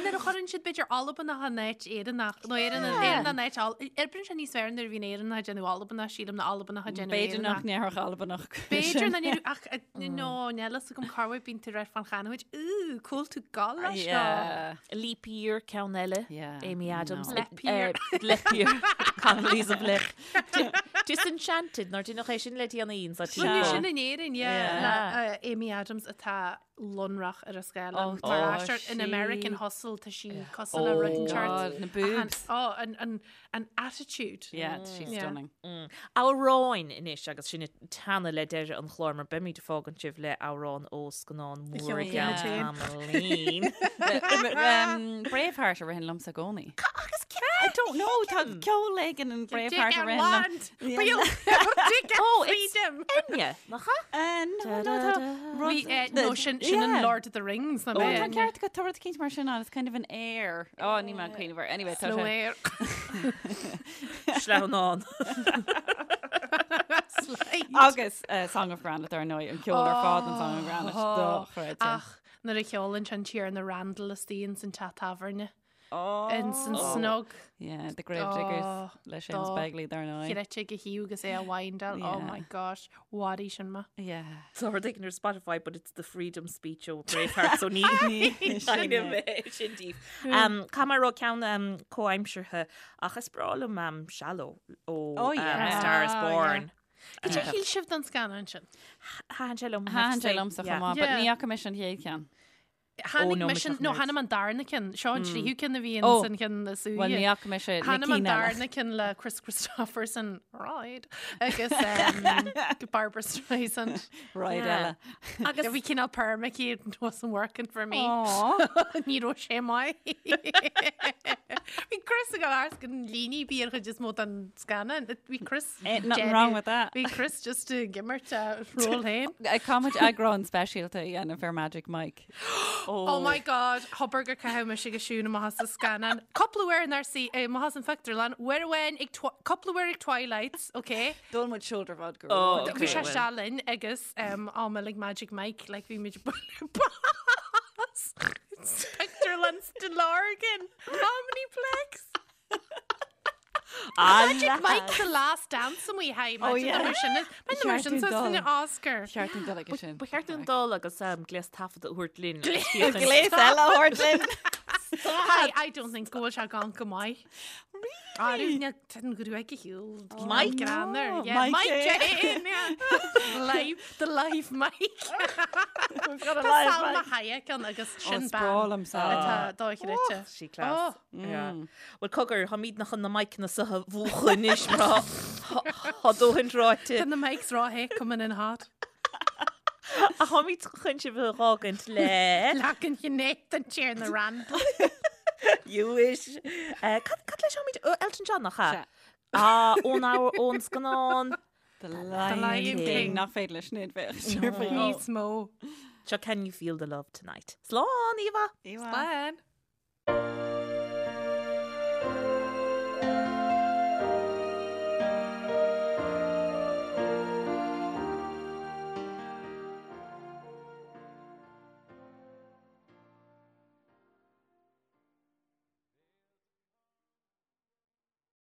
nuair a chuireann siad b'fhéidir Albanach in áit Éireannach, nó Éireannach Éireannach in áit Al- Oibríonn sé níos fearr nuair a bhíonn Éireannach ag déanamh Albanach, sílim, ná Albanach ag déanamh B'fhéidir nach Éireannach. ndéarfadh Albanach. B'fhéidir nach ndéarfadh, ach no, níl fhios agam cá bhfuil bíonn tú ag rá fán chanúint, Ooh, cá bhfuil tú ag gabháil leis seo. Yeah. Leap Year ceann eile, Yeah, Amy Adams. no. Leap Year. Leap Year. Connolly's of Leap. Disenchanted, nár deineadh é sin le déanaí sa Rinneadh tír. sin in Éirinn, yeah, le Amy Adams atá lonrach ar an scáileán. Oh, Mar tá aisteoir in sí. American Hustle tá sí cosúil le rud Oh inteacht. God, na boobs. Oh, an, an, an attitude. Yeah, she's Yeah. stunning. Amhráin anois agus sinn ag teannadh le deireadh an chláir mar beimid ag fágaint sibh le amhrán ó scannán mór i cheol gceann féin. tamaillín. Um, Braveheart a ritheann liomsa i gcónaí. Agus I don't know, tá ceol éigin in Braveheart a ritheann liom. Oh, it's Enya, nach ea? No, no, tá rud- Bhí, no, sin, sin an Yeah. Lord of the Rings na Oh, tá mé. ceart agat, tá rud eicínt mar sin ann, it's kind of an air. Oh, níl mé ag cuimhneamh air. Anyway, tá Slow sé. air. Sleamhnán. Slide. Agus uh, Song of Granite ar ndóigh, an ceol ar fad an Song of Granite. Dochreidte. Ach, nuair a cheolann an Tiarna Randall istigh ins an teach tábhairne. Ins an snug. Yeah, the Grave Diggers Oh, le Seamus dá. Begley dar ndóigh. Chreidte go hiú agus é a windáil. Oh Yeah. my gosh, mharaigh sin mé. Yeah. Tá rud éigin ar Spotify, but it's the freedom speech ó Braveheart, so ní ní sin díobh. Um, Caithfidh mé a rá ceann um, comhaimseartha ach is breá liom um, Shallow ó Oh, um, yeah. Star is Ah, Born. Cad é a shíl sibh den scannán sin? Thaitin sé liom. Thaitin sé liomsa chomh maith, but Yeah. ní fhaca mise an chéad cheann. Tháinig no, mise, mise nó tháinig an darna ceann, seo an tríú ceann a bhí Oh. san ceann is Bhuel, ní fhaca mise na Tháinig an cinn eile. darna ceann le Kris Kristofferson, Ride, agus um, Barbra Streisand. Ride eile. Agus Bhí cineál perm aici, it wasn't working for me. Aw. Ní raibh sé maith. Bhí Kris ag gabháil gan líne ar bith ar chuid is mó den scannán. Bhí Kris Ain't nothing wrong with that. Bhí Kris just ag imirt a ról féin. Caithfimid eagrán speisialta a dhéanamh ar Magic Mike. Oh my god, thobair gur caitheadh mise go siún amach as an scannán. Cúpla uair nár sí amach as an phictiúrlann, uair amháin ag cúpla uair ag Twilight, ok? D'ól muid shoulder vodka. Oh, Bhí okay, sé well. seo linn agus am like Magic Mike, like bhí muid bas. Pictiúrlann Stillorgan, Omniplex. Magic Mike the Last Dance amuigh hi Oh, yeah. mar sin mar sin Cheart dúinn dul. Oscar. Cheart dúinn dul aige sin. Ba cheart dúinn dul agus gléas taifeadta a thabhairt linn. Gléas eile a thabhairt linn. Hi, I don't think go bhfuil sé gan go maith. Really? Tá an ghruaig a shiúl. Mike? Greannar. Oh, Yeah, Mike Mike Jane. Jane, yeah. Live, the live Mike. We've got a Tá live Salma Mike. Hayek ann agus Oh, sin bean is breá liom Salma. atá dochreidte. Sí class. Yeah. Well cogar táimidne chun na miceanna seo a mhúchadh anois mar tá dóthain ráite. Tá na mics rá coming in hot. Ach táimid chun sibh a fhágaint le Leagan ghné den Tiarna Randall. You wish. Eh, Cad cad leis táimid ó Elton John nach ea? Sea. Ah, ón amhar ón scannán. The Lion Lion King. King. Nach féidir leis sin bheith. Níos mó. Seo Can You Feel the Love Tonight. Slán, Eva! Slán. Slán.